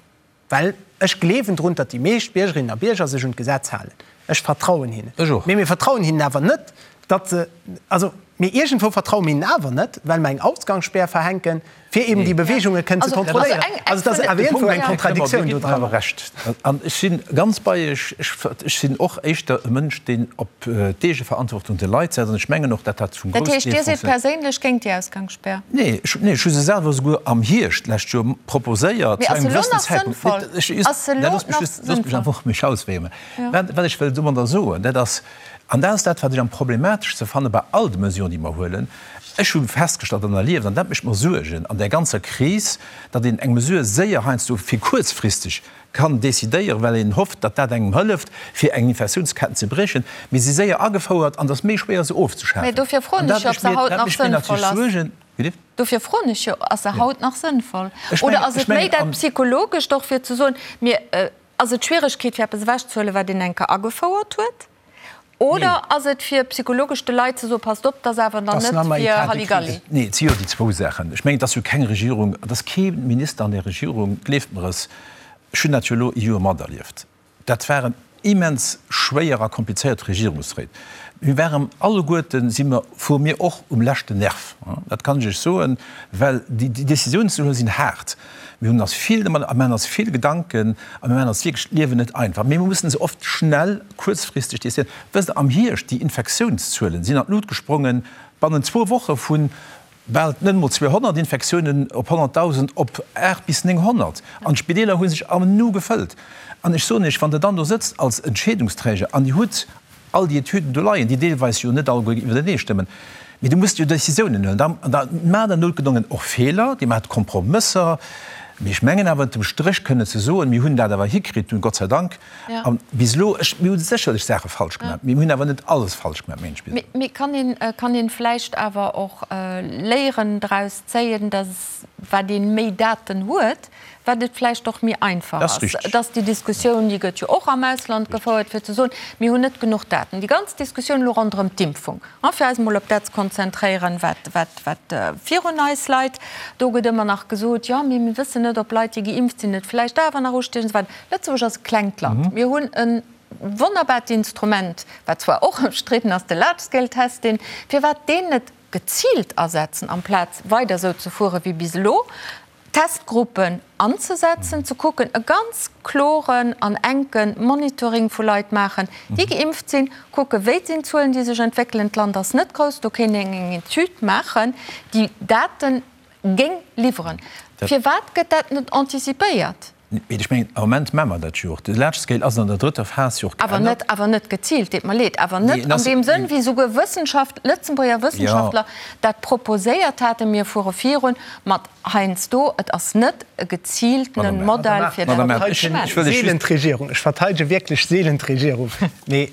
well ech gleewen drun, datt déi meescht Biergerinnen a Bierger sech un d'Gesetz halen. Ech vertrauen hinnen. Ech och. Mee mir vertrauen hinnen awer net, datt se, also, mee iergendwou vertraue mir hinnen awer net, well mer eng Ausgangsspär verhänken, fir eben déi Beweegunge kënnen ze kontrolléieren. Also et ass awer iergendwou eng Kontradiktiouun do dran. Awer Recht. An ech si ganz bei Iech. Ech sinn och éischter e Mënsch, deen op d'Eegeverantwortung der Leit setzt. An ech mengen och, datt dat zum Dat groussen heescht, Deel Dir sidd funktionéiert. perséinlech géint déi Ausgangsspär? Nee, ech, nee, ech hu se selwer esouguer am Hierscht d'lescht Joer proposéiert, Mee zu ass se engem elo gewëssenen nach Zäitpunkt. sënnvoll? Mee ech just, Ass se nee, elo loosst mech nach just, loosst mech sënnvoll? einfach mech ausféieren. Ja. Wat, wat ech wëll domadder soen, dat ass, an dat ass dat, wat ech am problemateschste fanne bei all de Mesuren, déi mer huelen, Ech hu festgestallt an erlieft, an dat mécht mer Suergen an där ganzer Kris, datt een eng Mesure séier heiansdo fir kuerzfristeg kann decidéieren, well een hofft, datt dat engem hëlleft, fir eng Infektiounsketten ze briechen, mee si séier agefouert an et ass méi schwéier se Mee ofzeschafen. dofir An froen dat ech jo, ob mécht se mir, haut dat nach mécht mir sënnvoll natierlech ass. Suergen. Wéi bitte? Dofir froen ech jo, Ass se haut nach sënnvoll? Ech Oder mengen, ass ech et méi mengen dat an. Psychologescht och, fir ze soen, mir, ass et d'Schwieregkeet, fir eppes ewechzehuelen, wat een eng Kéier agefouert huet? Oder ass et fir psychologesch de Leit ze soen, passt op, 't ass awer dann net fir Halligalli? Nee, et si jo déi zwou Saachen. Ech mengen, et ass jo keng Regierung, et ass kee Minister an där Regierung, gleeft mer es, ech hunn dat jo elo ee Joer materlieft, dat waren immens schwéier a komplizéiert Regierungsréit. Mir waren alleguerten, si mer, fuere mir och um leschten Nerv, dat kann ech Iech soen, well déi Décisiounen ze huelen sinn haart. Mir hunn eis vill domat, a maachen eis vill Gedanken a mir maachen eis wierklech d'Liewen net einfach. Mee mir mussen se oft schnell, kuerzfristeg décidéieren. Wësst Der, am Hierscht, déi Infektiounszuelen sinn an d'Lut gesprongen, bannent zwou Woche vu bal net emol 200 Infektiounen op 100.000 op 8 bis 900. An d'Spideeler hu sech am Nu gefëllt. An ech soen Iech, wann Der dann do sëtzt als Entscheedungsträger an Dir hutt all déi Etüden do leien, déi deelweis jo net alleguer iwwertenee stëmmen, mee du muss jo Décisiounen huelen. An da maacht Der noutgedongen och Feeler, Dir maacht Kompromësser, mee ech mengen awer ënnertem Stréch kënnen ze soen, mir hunn dat awer hikritt, Gott sei Dank. A bis elo, ech, mir hu sécherlech Saache falsch gemaach, mee mir hunn awer net alles falsch gemaach, mengen ech bis elo. Mee kann een, kann een vläicht awer och Léieren draus zéien, datt wat ee méi Daten huet, wat et vläicht och méi einfach ass, dass déi Diskussioun, déi gëtt jo och am Ausland gefouert, fir ze soen, mir hunn net genuch Daten. Déi ganz Diskussioun elo ronderëm d'Impfung, fir eis emol op dat ze konzentréieren, wat, wat, wat virun eis leit, do gëtt ëmmer nach gesot, jo, mee mir wëssen net, ob Leit, déi geimpft sinn, et vläicht awer nach ustiechen an esou weider. Lëtzebuerg ass e klengt Land. Mir hunn e wonnerbart Instrument, wat zwar och ëmstridden ass, de Large-Scale-Testing. Firwat deen net geziilt asetzen, amplaz weider esou ze fuere wéi bis elo? Testgruppen anzesetzen, ze kucken, e ganz kloren an enke Monitoring vu Leit maachen, déi geimpft sinn, kucken, wéi sinn d'Zuelen, déi sech entwéckelen. D'Land ass net grouss, do kéint een eng Etüd maachen, déi Date géing liwweren. Firwat gëtt dat net anticipéiert? Mee ech mengen, am Moment maache mer dat jo och. De Large Scale ass an der drëtter Phas jo och Awer net, geännert. awer net geziilt, deet mer leed, awer Nee, net en an ass, deem Sënn, wéi souguer Wëssenschaft, Lëtzebuerger jo. Wëssenschaftler dat proposéiert haten. Mir fuere virun mat heiansdo, et ass net e geziiltene Madame Err. Modell, fir dat Madame Err, ze ech, maachen. ech wëll lech Seelen just. d'Regierung, ech verteidege wierklech seelen d'Regierung, mee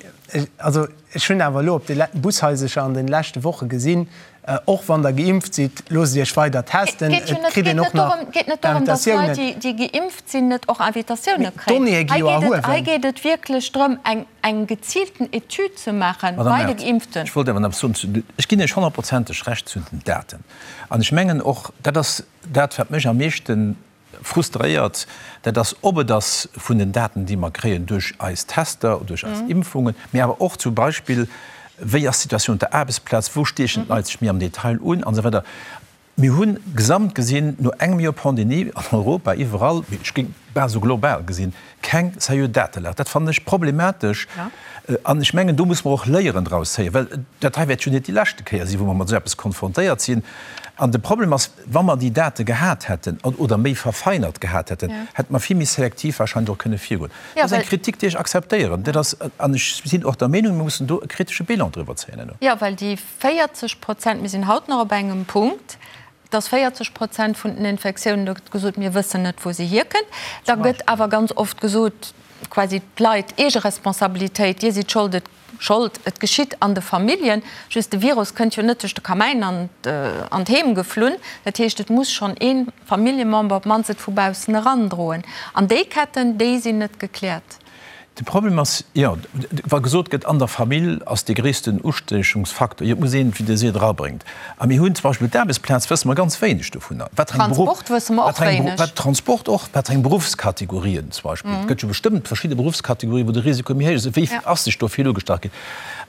also ech hunn awer elo op de Bushaisercher an de leschte Woche gesinn, Och wann der geimpft sidd, loosst Iech weider testen. Et Et kritt een och nach geet net dorëm, datt Invitatiounen. Leit, déi geimpft sinn, net och Invitatioune Mee kréien. d'Donnéeë gi jo erhuewen. Hei geet et wierklech drëm, eng geziilten Etüd ze maache bei de Geimpften. Ech wollt awer nach soen, ech ginn Iech honnertprozenteg Recht zu den Daten. An ech mengen och, dat ass dat, wat mech am meeschten Frustréiert, dat ass, ob et ass vun den Daten, déi mer kréien duerch eis Tester, duerch eis Impfungen, mee awer och zum Beispill, wéi ass d'Situatioun op der Aarbechtsplaz, wou stiechen d'Leit sech méi am Detail un an esou weider. Mir hu gesamt gesinn, no engem Joer Pandemie an Europa iwwerall, mee ech géing bal esou global gesinn, keng seriö Datelag. Dat fannen ech problematesch an ech mengen, do muss mer och Léieren draus zéien, well dat hei wäert jo net déi leschte Kéier sinn, wou mer mat esou eppes konfrontéiert sinn. An de Problem ass, wa mer déi Date gehat hätten oder méi verfeinert gehat hätten, hätte mer vill méi selektiv wahrscheinlech och kënne virgoen. Dat ass eng Kritik, déi ech akzeptéieren. Dat ass, an ech sinn och der Meenung, mir mussen do e kritesche Bilan driwwer zéien herno. Jo, well déi 40 Prozent, mir sinn haut nach op engem Punkt, dass 40 Prozent vun den Infektiounen, do gëtt gesot, mir wëssen net, wou se hierkënnt. Da gëtt awer ganz oft gesot, quasi d'Leit, Eegeresponsabilitéit, Dir sidd schold, et Schold, et geschitt an de Familljen. Just de Virus kënnt jo net duerch de Kamäin an d'Heem geflunn. Dat heescht, et muss schonn ee Familljemember op d'mannst et vu baussen erandroen. An déi Ketten, déi sinn net gekläert. De Problem ass, jo, wa gesot gëtt, an der Famill ass dee gréissten Ustiechungsfaktor, jo, et muss een, wéi Der seet, erabréngt. A mir hunn zum Beispill d'Aarbechtsplaz, wësse mer ganz wéineg dovunner, wat fir eng Beruff, Transport wësse mer och wat fir eng, wéineg. wat Transport och, wat fir eng Beruffskategorien zum Beispill. Et gëtt jo bestëmmt verschidde Beruffskategorien, wou de Risiko méi héich ass. Wéi ass sech do vill ugestach ginn?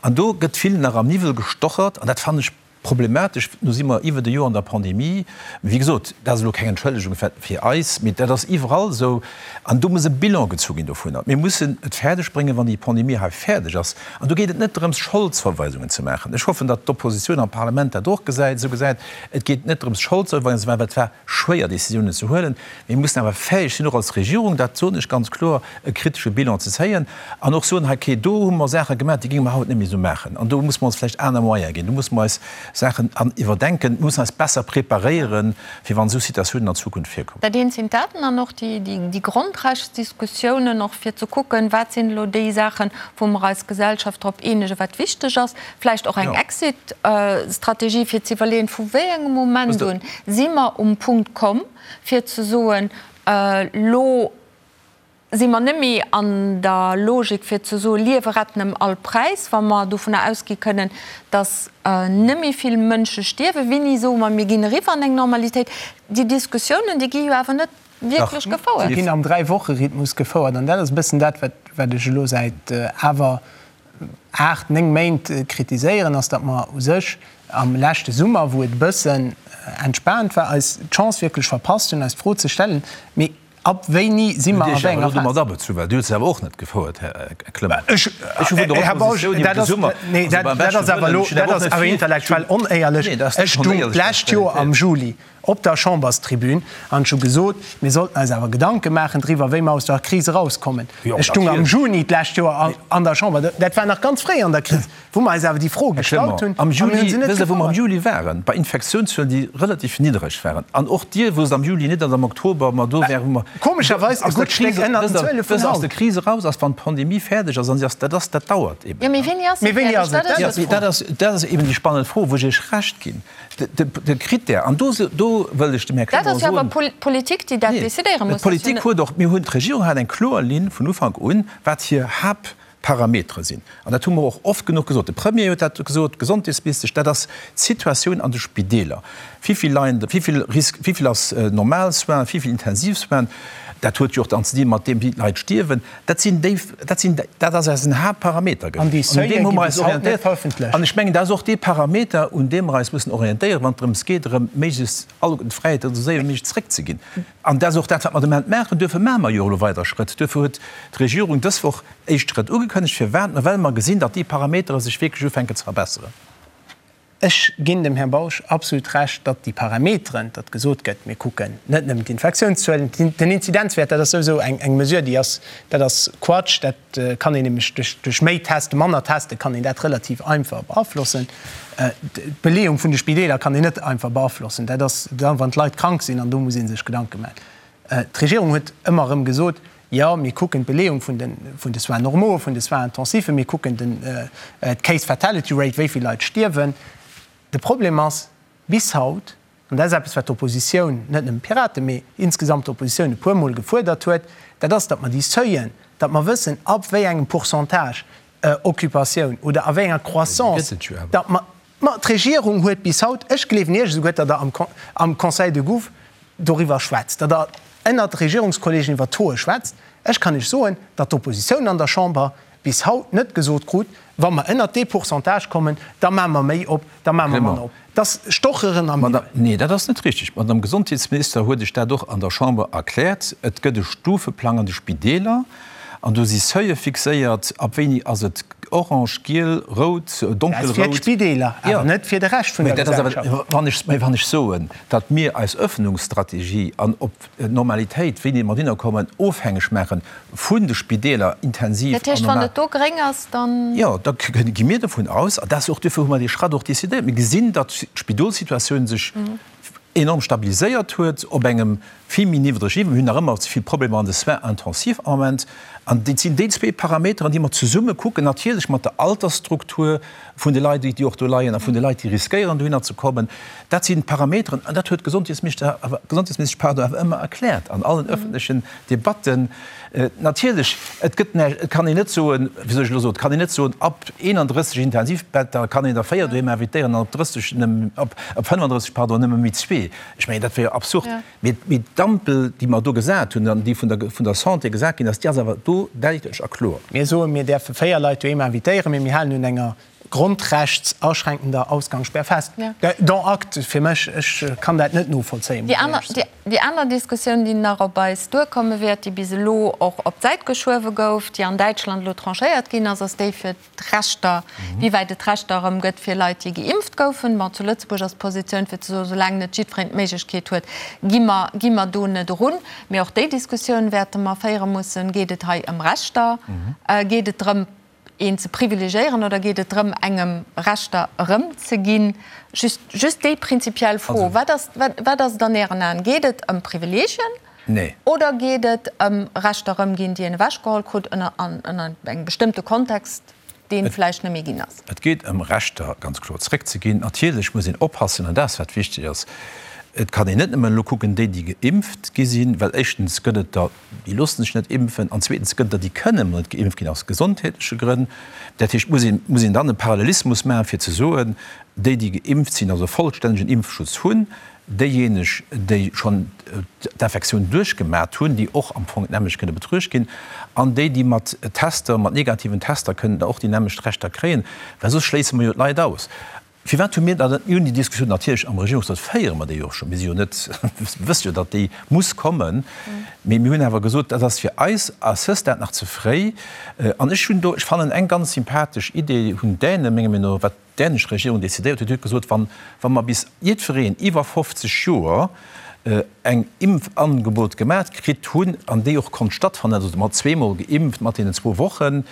An do gëtt vill nach am Niwwel gestochert an dat fannen ech Problematesch, nu si mer iwwert e Joer an der Pandemie. Wéi gesot, dat ass elo keng Entschëllegung fir eis, mee dat ass iwwerall esou. An do muss e Bilan gezu ginn dovunner. Mir mussen et fäerdeg bréngen, wann déi Pandemie hei fäerdeg ass, an do geet et net drëms, Scholdsverweisungen ze maachen. Ech hoffen, datt d'Oppositioun am Parlament dat och gesäit, esou gesäit. Et geet net drëms, Scholdsverweisungen ze maachen, well et war schwéier, Décisiounen ze huelen. Mir mussen awer fäeg sinn, och als Regierung, dat soen ech ganz kloer, e kritesche Bilan ze zéien an och soen, hei, okay, do hu mer Saache gemaach, déi géinge mer haut net méi esou maachen an do musse mer ons vläicht aner Moyene ginn, do musse mer eis Saachen an iwwerdenken, mir mussen eis besser preparéieren, fir wann esou Situatiounen an Zukunft virkommen. Dat eent sinn d'Daten an och déi Grondrechtsdiskussiounen, och fir ze kucken, wat sinn elo déi Saachen, wou mer eis Gesellschaft drop eenegen, wat wichteg ass, vläicht och eng Exit-Strategie, fir ze iwwerleeën, vu wéi engem Moment un si mer um Punkt komm, fir ze soen, elo si mer net méi an der Logik fir ze soen, Liewe retten ëm all Präis, wa mer dovunner ausgi kënnen, datt net méi vill Mënsche stierwen, wéini soe mer, mir ginn eriwwer an eng Normalitéit? Déi Diskussiounen, déi gi jo awer net wierklech gefouert. Déi ginn am Dräiwoche-Rhythmus gefouert an dat ass e bëssen dat, wat ech elo säit awer 8, 9 Méint kritiséieren, ass, datt mer u sech am leschte Summer, wou et e bëssen entspaant war, eis d'Chance wierklech verpasst hunn, eis d'Fro ze stellen, Mee ab wéini si mer a wéi enger Phas? Dir hutt se awer och net gefouert, Här Clement. Ech hu vun der Oppositioun iwwer de Summer, also beim beschte Wëllen, ech hunn awer och net vill. Dat ass awer intellektuell onéierlech. Ech stung d'lescht Joer am Juli op der Chamberstribün an ech hu gesot, mir sollten eis awer Gedanke maachen driwwer, wéi mer aus der Kris erauskommen. Ech stung am Juni d'lescht Joer an der Chamber, dat war nach ganz fréi an der Kris, wou mer eis awer déi Fro gestallt hunn a mir hu se net Wësst Der, wou mer am Juli waren? Bei Infektiounszuelen, déi relativ niddereg waren. An och Dir wousst am Juli net, datt am Oktober mer do wären, wou mer Komescherweis e gutt Stéck ënnert den Zuele vun haut. Wësst Der, aus der Kris eraus ass, wann d'Pandemie fäerdeg ass, an si ass, dat ass, dat dauert eben. Jo, mee wéini ass se fäerdeg? Dat ass d'Fro. Dat ass eben déi spannend Fro, wou ech Iech Recht ginn. De Critère, an do, do wëll ech dem Här Clement soen. Dat ass jo awer d'Politik, déi dat decidéiere muss. D'Politik huet och, mir hunn, d'Regierung hat eng kloer Linn vun Ufank un, wat hir Haaptparametere sinn. An dat hu mer och oft genuch gesot. De Premier huet dat gesot, d'Gesondheetsministesch, dat ass d'Situatioun an de Spideeler. Wéi vill leien, wéi vill Risk, wéi vill ass normal Soins, wéi vill intensiv Soins, dat huet jo och dann ze di mat deem, wéi d'Leit stierwen. Dat sinn déi, dat sinn, dat ass eisen Haaptparameter gewiescht. An un deem hu mer eis orientéiert. An ech mengen, dat ass och dee Parameter, un deem mer eis mussen orientéieren, wann et drëms geet, erëm méiglechst alleguerten d'Fräiheeten esou séier wéi méiglech zréckzeginn. An dat ass och dat, wat mer de Moment maachen. Duerfir maache mer jo elo weider Schrëtt. Duerfir huet d'Regierung dës Woch éischt Schrëtt ugekënnegt. Firwat? Well mer gesinn, datt déi Parametere sech wierklech ufänken ze verbesseren. Ech ginn dem Här Bausch absolut Recht, datt déi Parameteren, datt gesot gëtt, mir kucken net nëmmen d'Infektiounszuelen, den Inzidenzwäert, dat ass souwisou eng Mesure, déi ass, dat ass Quatsch, dat kann een nämlech duerch, duerch méi Testen, manner Teste kann een dat relativ einfach beaflossen. D'Beleeung vun de Spideeler kann een net einfach beaflossen, dat ass da wann d'Leit krank sinn an do muss ee sech Gedanke maachen. D'Regierung huet ëmmer erëm gesot, Jo, mir kucken d'Beleeung vun de, vun de Soins normaux, vun de Soins intensifs, mir kucken den, d'Case Fatality Rate, wéi vill Leit stierwen. De Problem ass, bis haut, an dat ass eppes, wat d'Oppositioun, net nëmmen d'Piraten, mee insgesamt d'Oppositioun e puermol gefuerdert huet, dat ass, datt mer déi Seuillen, datt mer wëssen, ab wéi engem Pourcentage Occupatioun oder a wéi enger Croissance, datt mer, Ma d'Regierung huet bis haut, ech gleewen Iech esouguer, datt Der am Conseil de Gouv doriwwer schwätzt, datt Der ënnert Regierungskollegen iwwer d'Tauxe schwätzt. Ech kann Iech soen, datt d'Oppositioun an der Chamber bis haut net gesot krut, wa mer ënnert dee Pourcentage kommen, da maache mer méi op, da maache mer manner op. Dat ass Stocheren am Niwwel. Nee, dat ass net richtig. D'Madame Gesondheetsminister huet Iech dat och an der Chamber erkläert. Et gëtt e Stufeplang an de Spideeler. An do si Seuile fixéiert, ab wéini ass et orange, giel, rout, Dat ass donkelrout. fir d'Spideeler, awer net fir de Rescht vun der Gesellschaft. Wann ech, mä wann ech soen, datt mir eis Öffnungsstrategie an op d'Normalitéit, wéini mer dohinner kommen, ofhängeg maache vun de Spideeler, intensiv Dat heescht, an wann normal. et do gréng ass, dann. Jo, da gi mir dovun aus, an dat ass och, duerfir hu mer dee Schratt och decidéiert, mir gesinn, datt d'Spidolssituatioun sech. enorm stabiliséiert huet op engem vill méi niddreg Niveau. Mir hunn nach ëmmer ze vill Problemer an de Soins intensifs am Moment. An et sinn déi zwee Parameteren, déi mer zesumme kucken, natierlech mat der Altersstruktur vun de Leit, déi och do leien, a vun de Leit, déi riskéieren, dohinner ze kommen. Dat sinn d'Parameteren, an dat huet d'Gesondheetsminister awer, d'Gesondheetsministesch, pardon, awer ëmmer erkläert an allen öffentlechen Debatten. Natierlech, et gëtt näischt, et kann een net soen, wéi soll ech elo soen, et kann een net soen, ab 31 Intensivbetter kann een der 4 doheem invitéieren an op 30 nëmmen, op 35, pardon, nëmme méi zwee. Ech mengen, dat wär jo absurd. Mee, mee d'Ampel, déi mer do gesat hunn an déi vun der, vun der Santé gesat ginn ass, déi ass awer do däitlech a kloer. Mir soen, mir däerfe 4 Leit doheem invitéieren, mee mir halen un enger grundrechtsaschränkender Ausgangssperr fest. Dont acte fir mech. Ech kann dat net novollzéien, muss ech éierlech soen. Déi aner Diskussioun, déi nach op eis duerkomme wäert, déi bis elo och op d'Säit geschuewe gouf, déi an Däitschland elo tranchéiert ginn ass, ass déi fir d'Rechter, wéi wäit et Rechter erëm gëtt fir Leit, déi geimpft goufen. Bon, zu Lëtzebuerg ass d'Positioun fir ze soen, soulaang net jiddwereen d'Méiglechkeet huet, gi mer, gi mer do net erun. Mee och déi Diskussioun wäerte mer féiere mussen. Geet et hei ëm Rechter? Geet et drëm, een ze privilegiéieren oder geet et drëm, engem Rechter erëmzeginn? Just, just déi prinzipiell Fro, Wat ass, wat ass et an Ären Aen? Geet et ëm Privilegien oder geet et ëm Rechter erëmginn, déi een ewechgeholl krut ënner, an, ënner engem bestëmmte Kontext, deen vläicht net méi ginn ass? Et geet ëm Rechter ganz kloer zréckzeginn. Natierlech muss een oppassen, an dat ass wat wichteg ass, et kann een net nëmmen elo kucken, déi, déi geimpft gi sinn, well éischtens gëtt et der, Déi loosse sech net impfen. An zweetens gëtt der, déi kënnen net geimpft ginn aus gesondheetleche Grënn. Dat heescht, muss een, muss een dann e Parallelismus maachen, fir ze soen, déi, déi geimpft sinn, also vollstännegen Impfschutz hunn, déijéineg, déi schonn d'Infektioun duerchgemat hunn, déi och am Fong d'nämmlecht kënne betruecht ginn, an déi, déi mat Tester, mat negativen Tester kënnen da och déi nämmlecht Rechter kréien, well soss schléisse mer jo d'Leit aus. Firwat hu mir da net, mir hunn déi Diskussioun natierlech am Regierungsrot, féiere mer déi jo och schonn, mir si jo net, mir wësse jo, datt déi muss kommen, mee mir hunn awer gesot, dat ass fir eis à ce stade nach ze fréi. An ech hunn do, ech fannen eng ganz sympathesch Idee hunn d'Däne menger Meenung no, wat d'dänesch Regierung decidéiert huet, déi huet gesot, wann, wa mer bis jiddwereen iwwer 50 Joer eng Impfangebot gemat kritt hunn an déi och konnt stattfannen, also mat zweemol geimpft mat deenen zwou Wochen,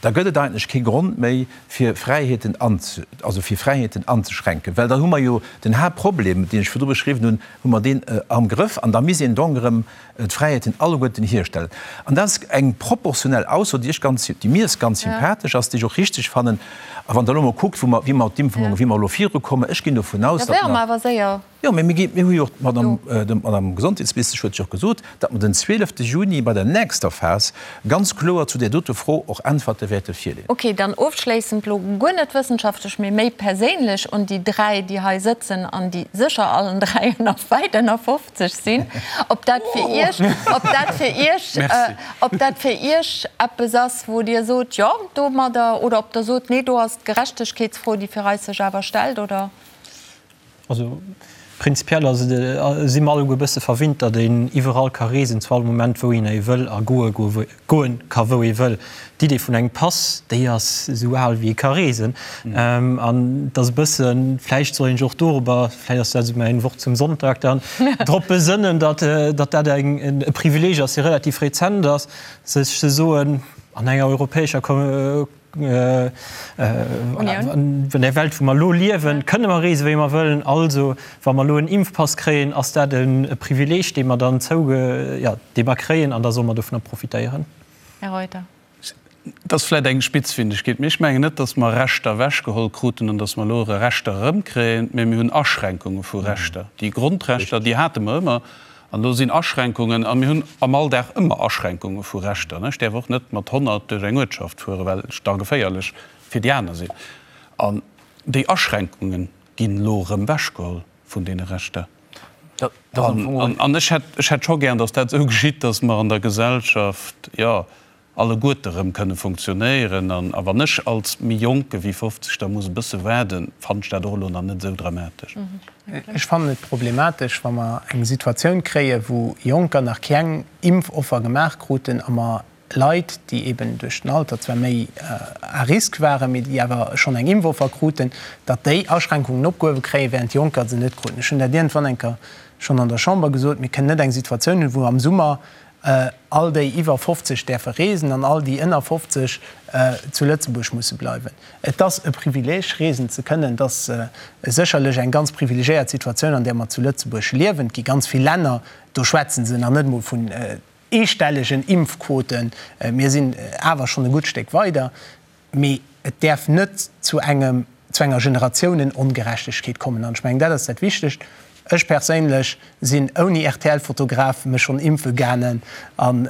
da gëtt et eigentlech kee Grond méi, fir Fräiheeten also fir Fräiheeten anzeschränken, well dann hu mer jo den Haaptproblem, deen ech virdru beschriwwen hunn, hu mer deen am Grëff an da misst een donc erëm d'Fräiheeten alleguerten hierstellen. An dat ass eng proportionell Ausso, déi ech ganz, déi mir ganz sympathesch ass, déi ech och richteg fannen. A wann Der elo mol kuckt, wou mer, wéi mer d'Impfungen, wéi mer elo virukommen, ech ginn dovun aus, datt mer. Jo, mee mir gi, mir hu jo och, d'Madame, d'Madame Gesondheetsministesch huet jo och gesot, datt mer den 12 Juni bei der nächster Phas ganz kloer zu där dote Fro och Äntwerte wäerte virleeën. Okay, dann ofschléissend, lo guer net wëssenschaftlech, mee méi perséinlech un déi dräi, déi hei sëtzen an déi sécher allen dräi ënner, wäit ënner 50 sinn, ob dat fir Iech, ob dat fir Iech, ob dat fir Iech eppes ass, wou Dir sot, jo, domadder, oder ob Der sot, nee, do ass d'Gerechtegkeetsfro, déi fir eis sech awer stellt, oder? Also prinzipiell ass et, si mer alleguer e bësse verwinnt, datt een iwwerall ka reesen, zu all Moment wou een ee wëll a goe goe ka wou ee wëll. D'Idee vun engem Pass, déi ass esou al wéi ee ka reesen. An et ass e bëssen, vläicht soll een sech och dorobber, vläicht ass dat esou mäin Wort zum Sonntag dann, drop besënnen, datt datt dat eng e Privileeg ass, dee relativ rezent ass, sech ze soen, an enger europäescher An der Welt, wou mer elo liewen, kënne mer reesen, wéi mer wëllen. Also, wa mer elo en Impfpass kréien, ass dat e Privileeg, dee mer dann zouge, jo, dee mer kréien, an da solle mer dovunner profitéieren. Här Reuter. Et ass vläicht eng Spitzfindigkeet, mee ech mengen net, datt mer Rechter ewechgeholl kruten an datt mer elo erë Rechter erëmkréien, mee mir hunn Aschränkunge vu Rechter. Déi Grondrechter, déi hate mer ëmmer. An do sinn Aschränkungen, a mir hunn am Alldag ëmmer Aschränkunge vu Rechter. Ech däerf och net mat 100 duerch eng Uertschaft fueren, well ech da geféierlech fir déi aner sinn. An déi Aschränkunge ginn elo erëm ewechgeholl vun deene Rechter. An ech hätt, ech hätt scho gären, datt dat esou geschitt, datt mer an der Gesellschaft, jo, alleguerte rëm kënne funktionéieren. A wann ech als méi Jonke wéi 50 da muss e bësse waarden, fannen ech dat och elo nach net esou dramatesch. Ech fannen et problematesch, wa mer eng Situatioun kréien, wou Jonker nach keng Impfoffer gemaach kruten a mer Leit, déi eben duerch den Alter zwar méi à risque waren, mee déi awer schonn eng Impfoffer kruten, datt déi Aschränkungen opgehuewe kréien, während Jonker se net kruten. Ech hunn dat iergendwann eng Kéier schonn an der Chamber gesot, Mir kënnen net eng Situatioun hunn, wou am Summer. All déi iwwer 50 däerfe reesen an all déi ënner 50 zu Lëtzebuerg musse bleiwen. Et ass e Privileeg, reesen ze kënnen. Et ass sécherlech eng ganz privilegiéiert Situatioun, an där mer zu Lëtzebuerg liewen. Et gi ganz vill Länner, do schwätze se nach net emol vun eestellegen Impfquoten. Mir sinn awer schonn e gutt Stéck weider. Mee et däerf net zu engem, zu enger Generatiounen-Ongerechtegkeet kommen. An ech mengen, dat ass dat Wichtegt. Ech perséinlech sinn ouni RTL-Fotograf mech schonn impfe gaangen an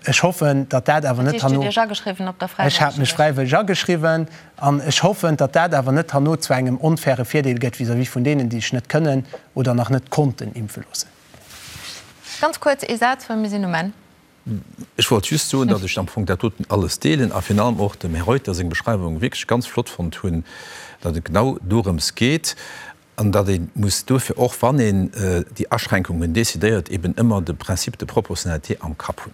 ech hoffen, datt dat awer net herno. Dat heescht, Dir hutt Iech ageschriwwen op der Ech hat mech fräiwëlleg ageschriwwen an ech hoffen, datt dat awer net herno zu engem onfaire Virdeel gëtt vis-à-vis vun deenen, déi sech net kënnen oder nach net konnten impfe loossen. Ganz kuerz ee Saz, well mir sinn um Enn. Ech wollt just soen, datt ech am Fong dat doten alles deelen a virun allem och dem Här Reuter seng Beschreiwung wierklech ganz flott fonnt hunn, datt et genau dorëms geet an datt ee muss duerfir och, wann een déi Aschränkungen decidéiert, eben ëmmer de Principe de proportionnalité am Kapp hunn.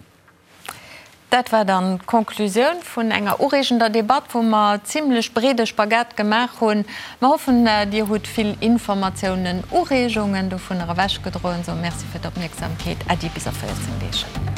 Dat war dann d'Conclusioun vun enger ureegender Debatt, wou mer zimlech breede Spagat gemaach hunn. Mer hoffen, Dir hutt vill Informatiounen, Ureegungen dovunner ewechgedroen. Soe Merci fir d'Opmierksamkeet. Äddi bis a 14 Deeg.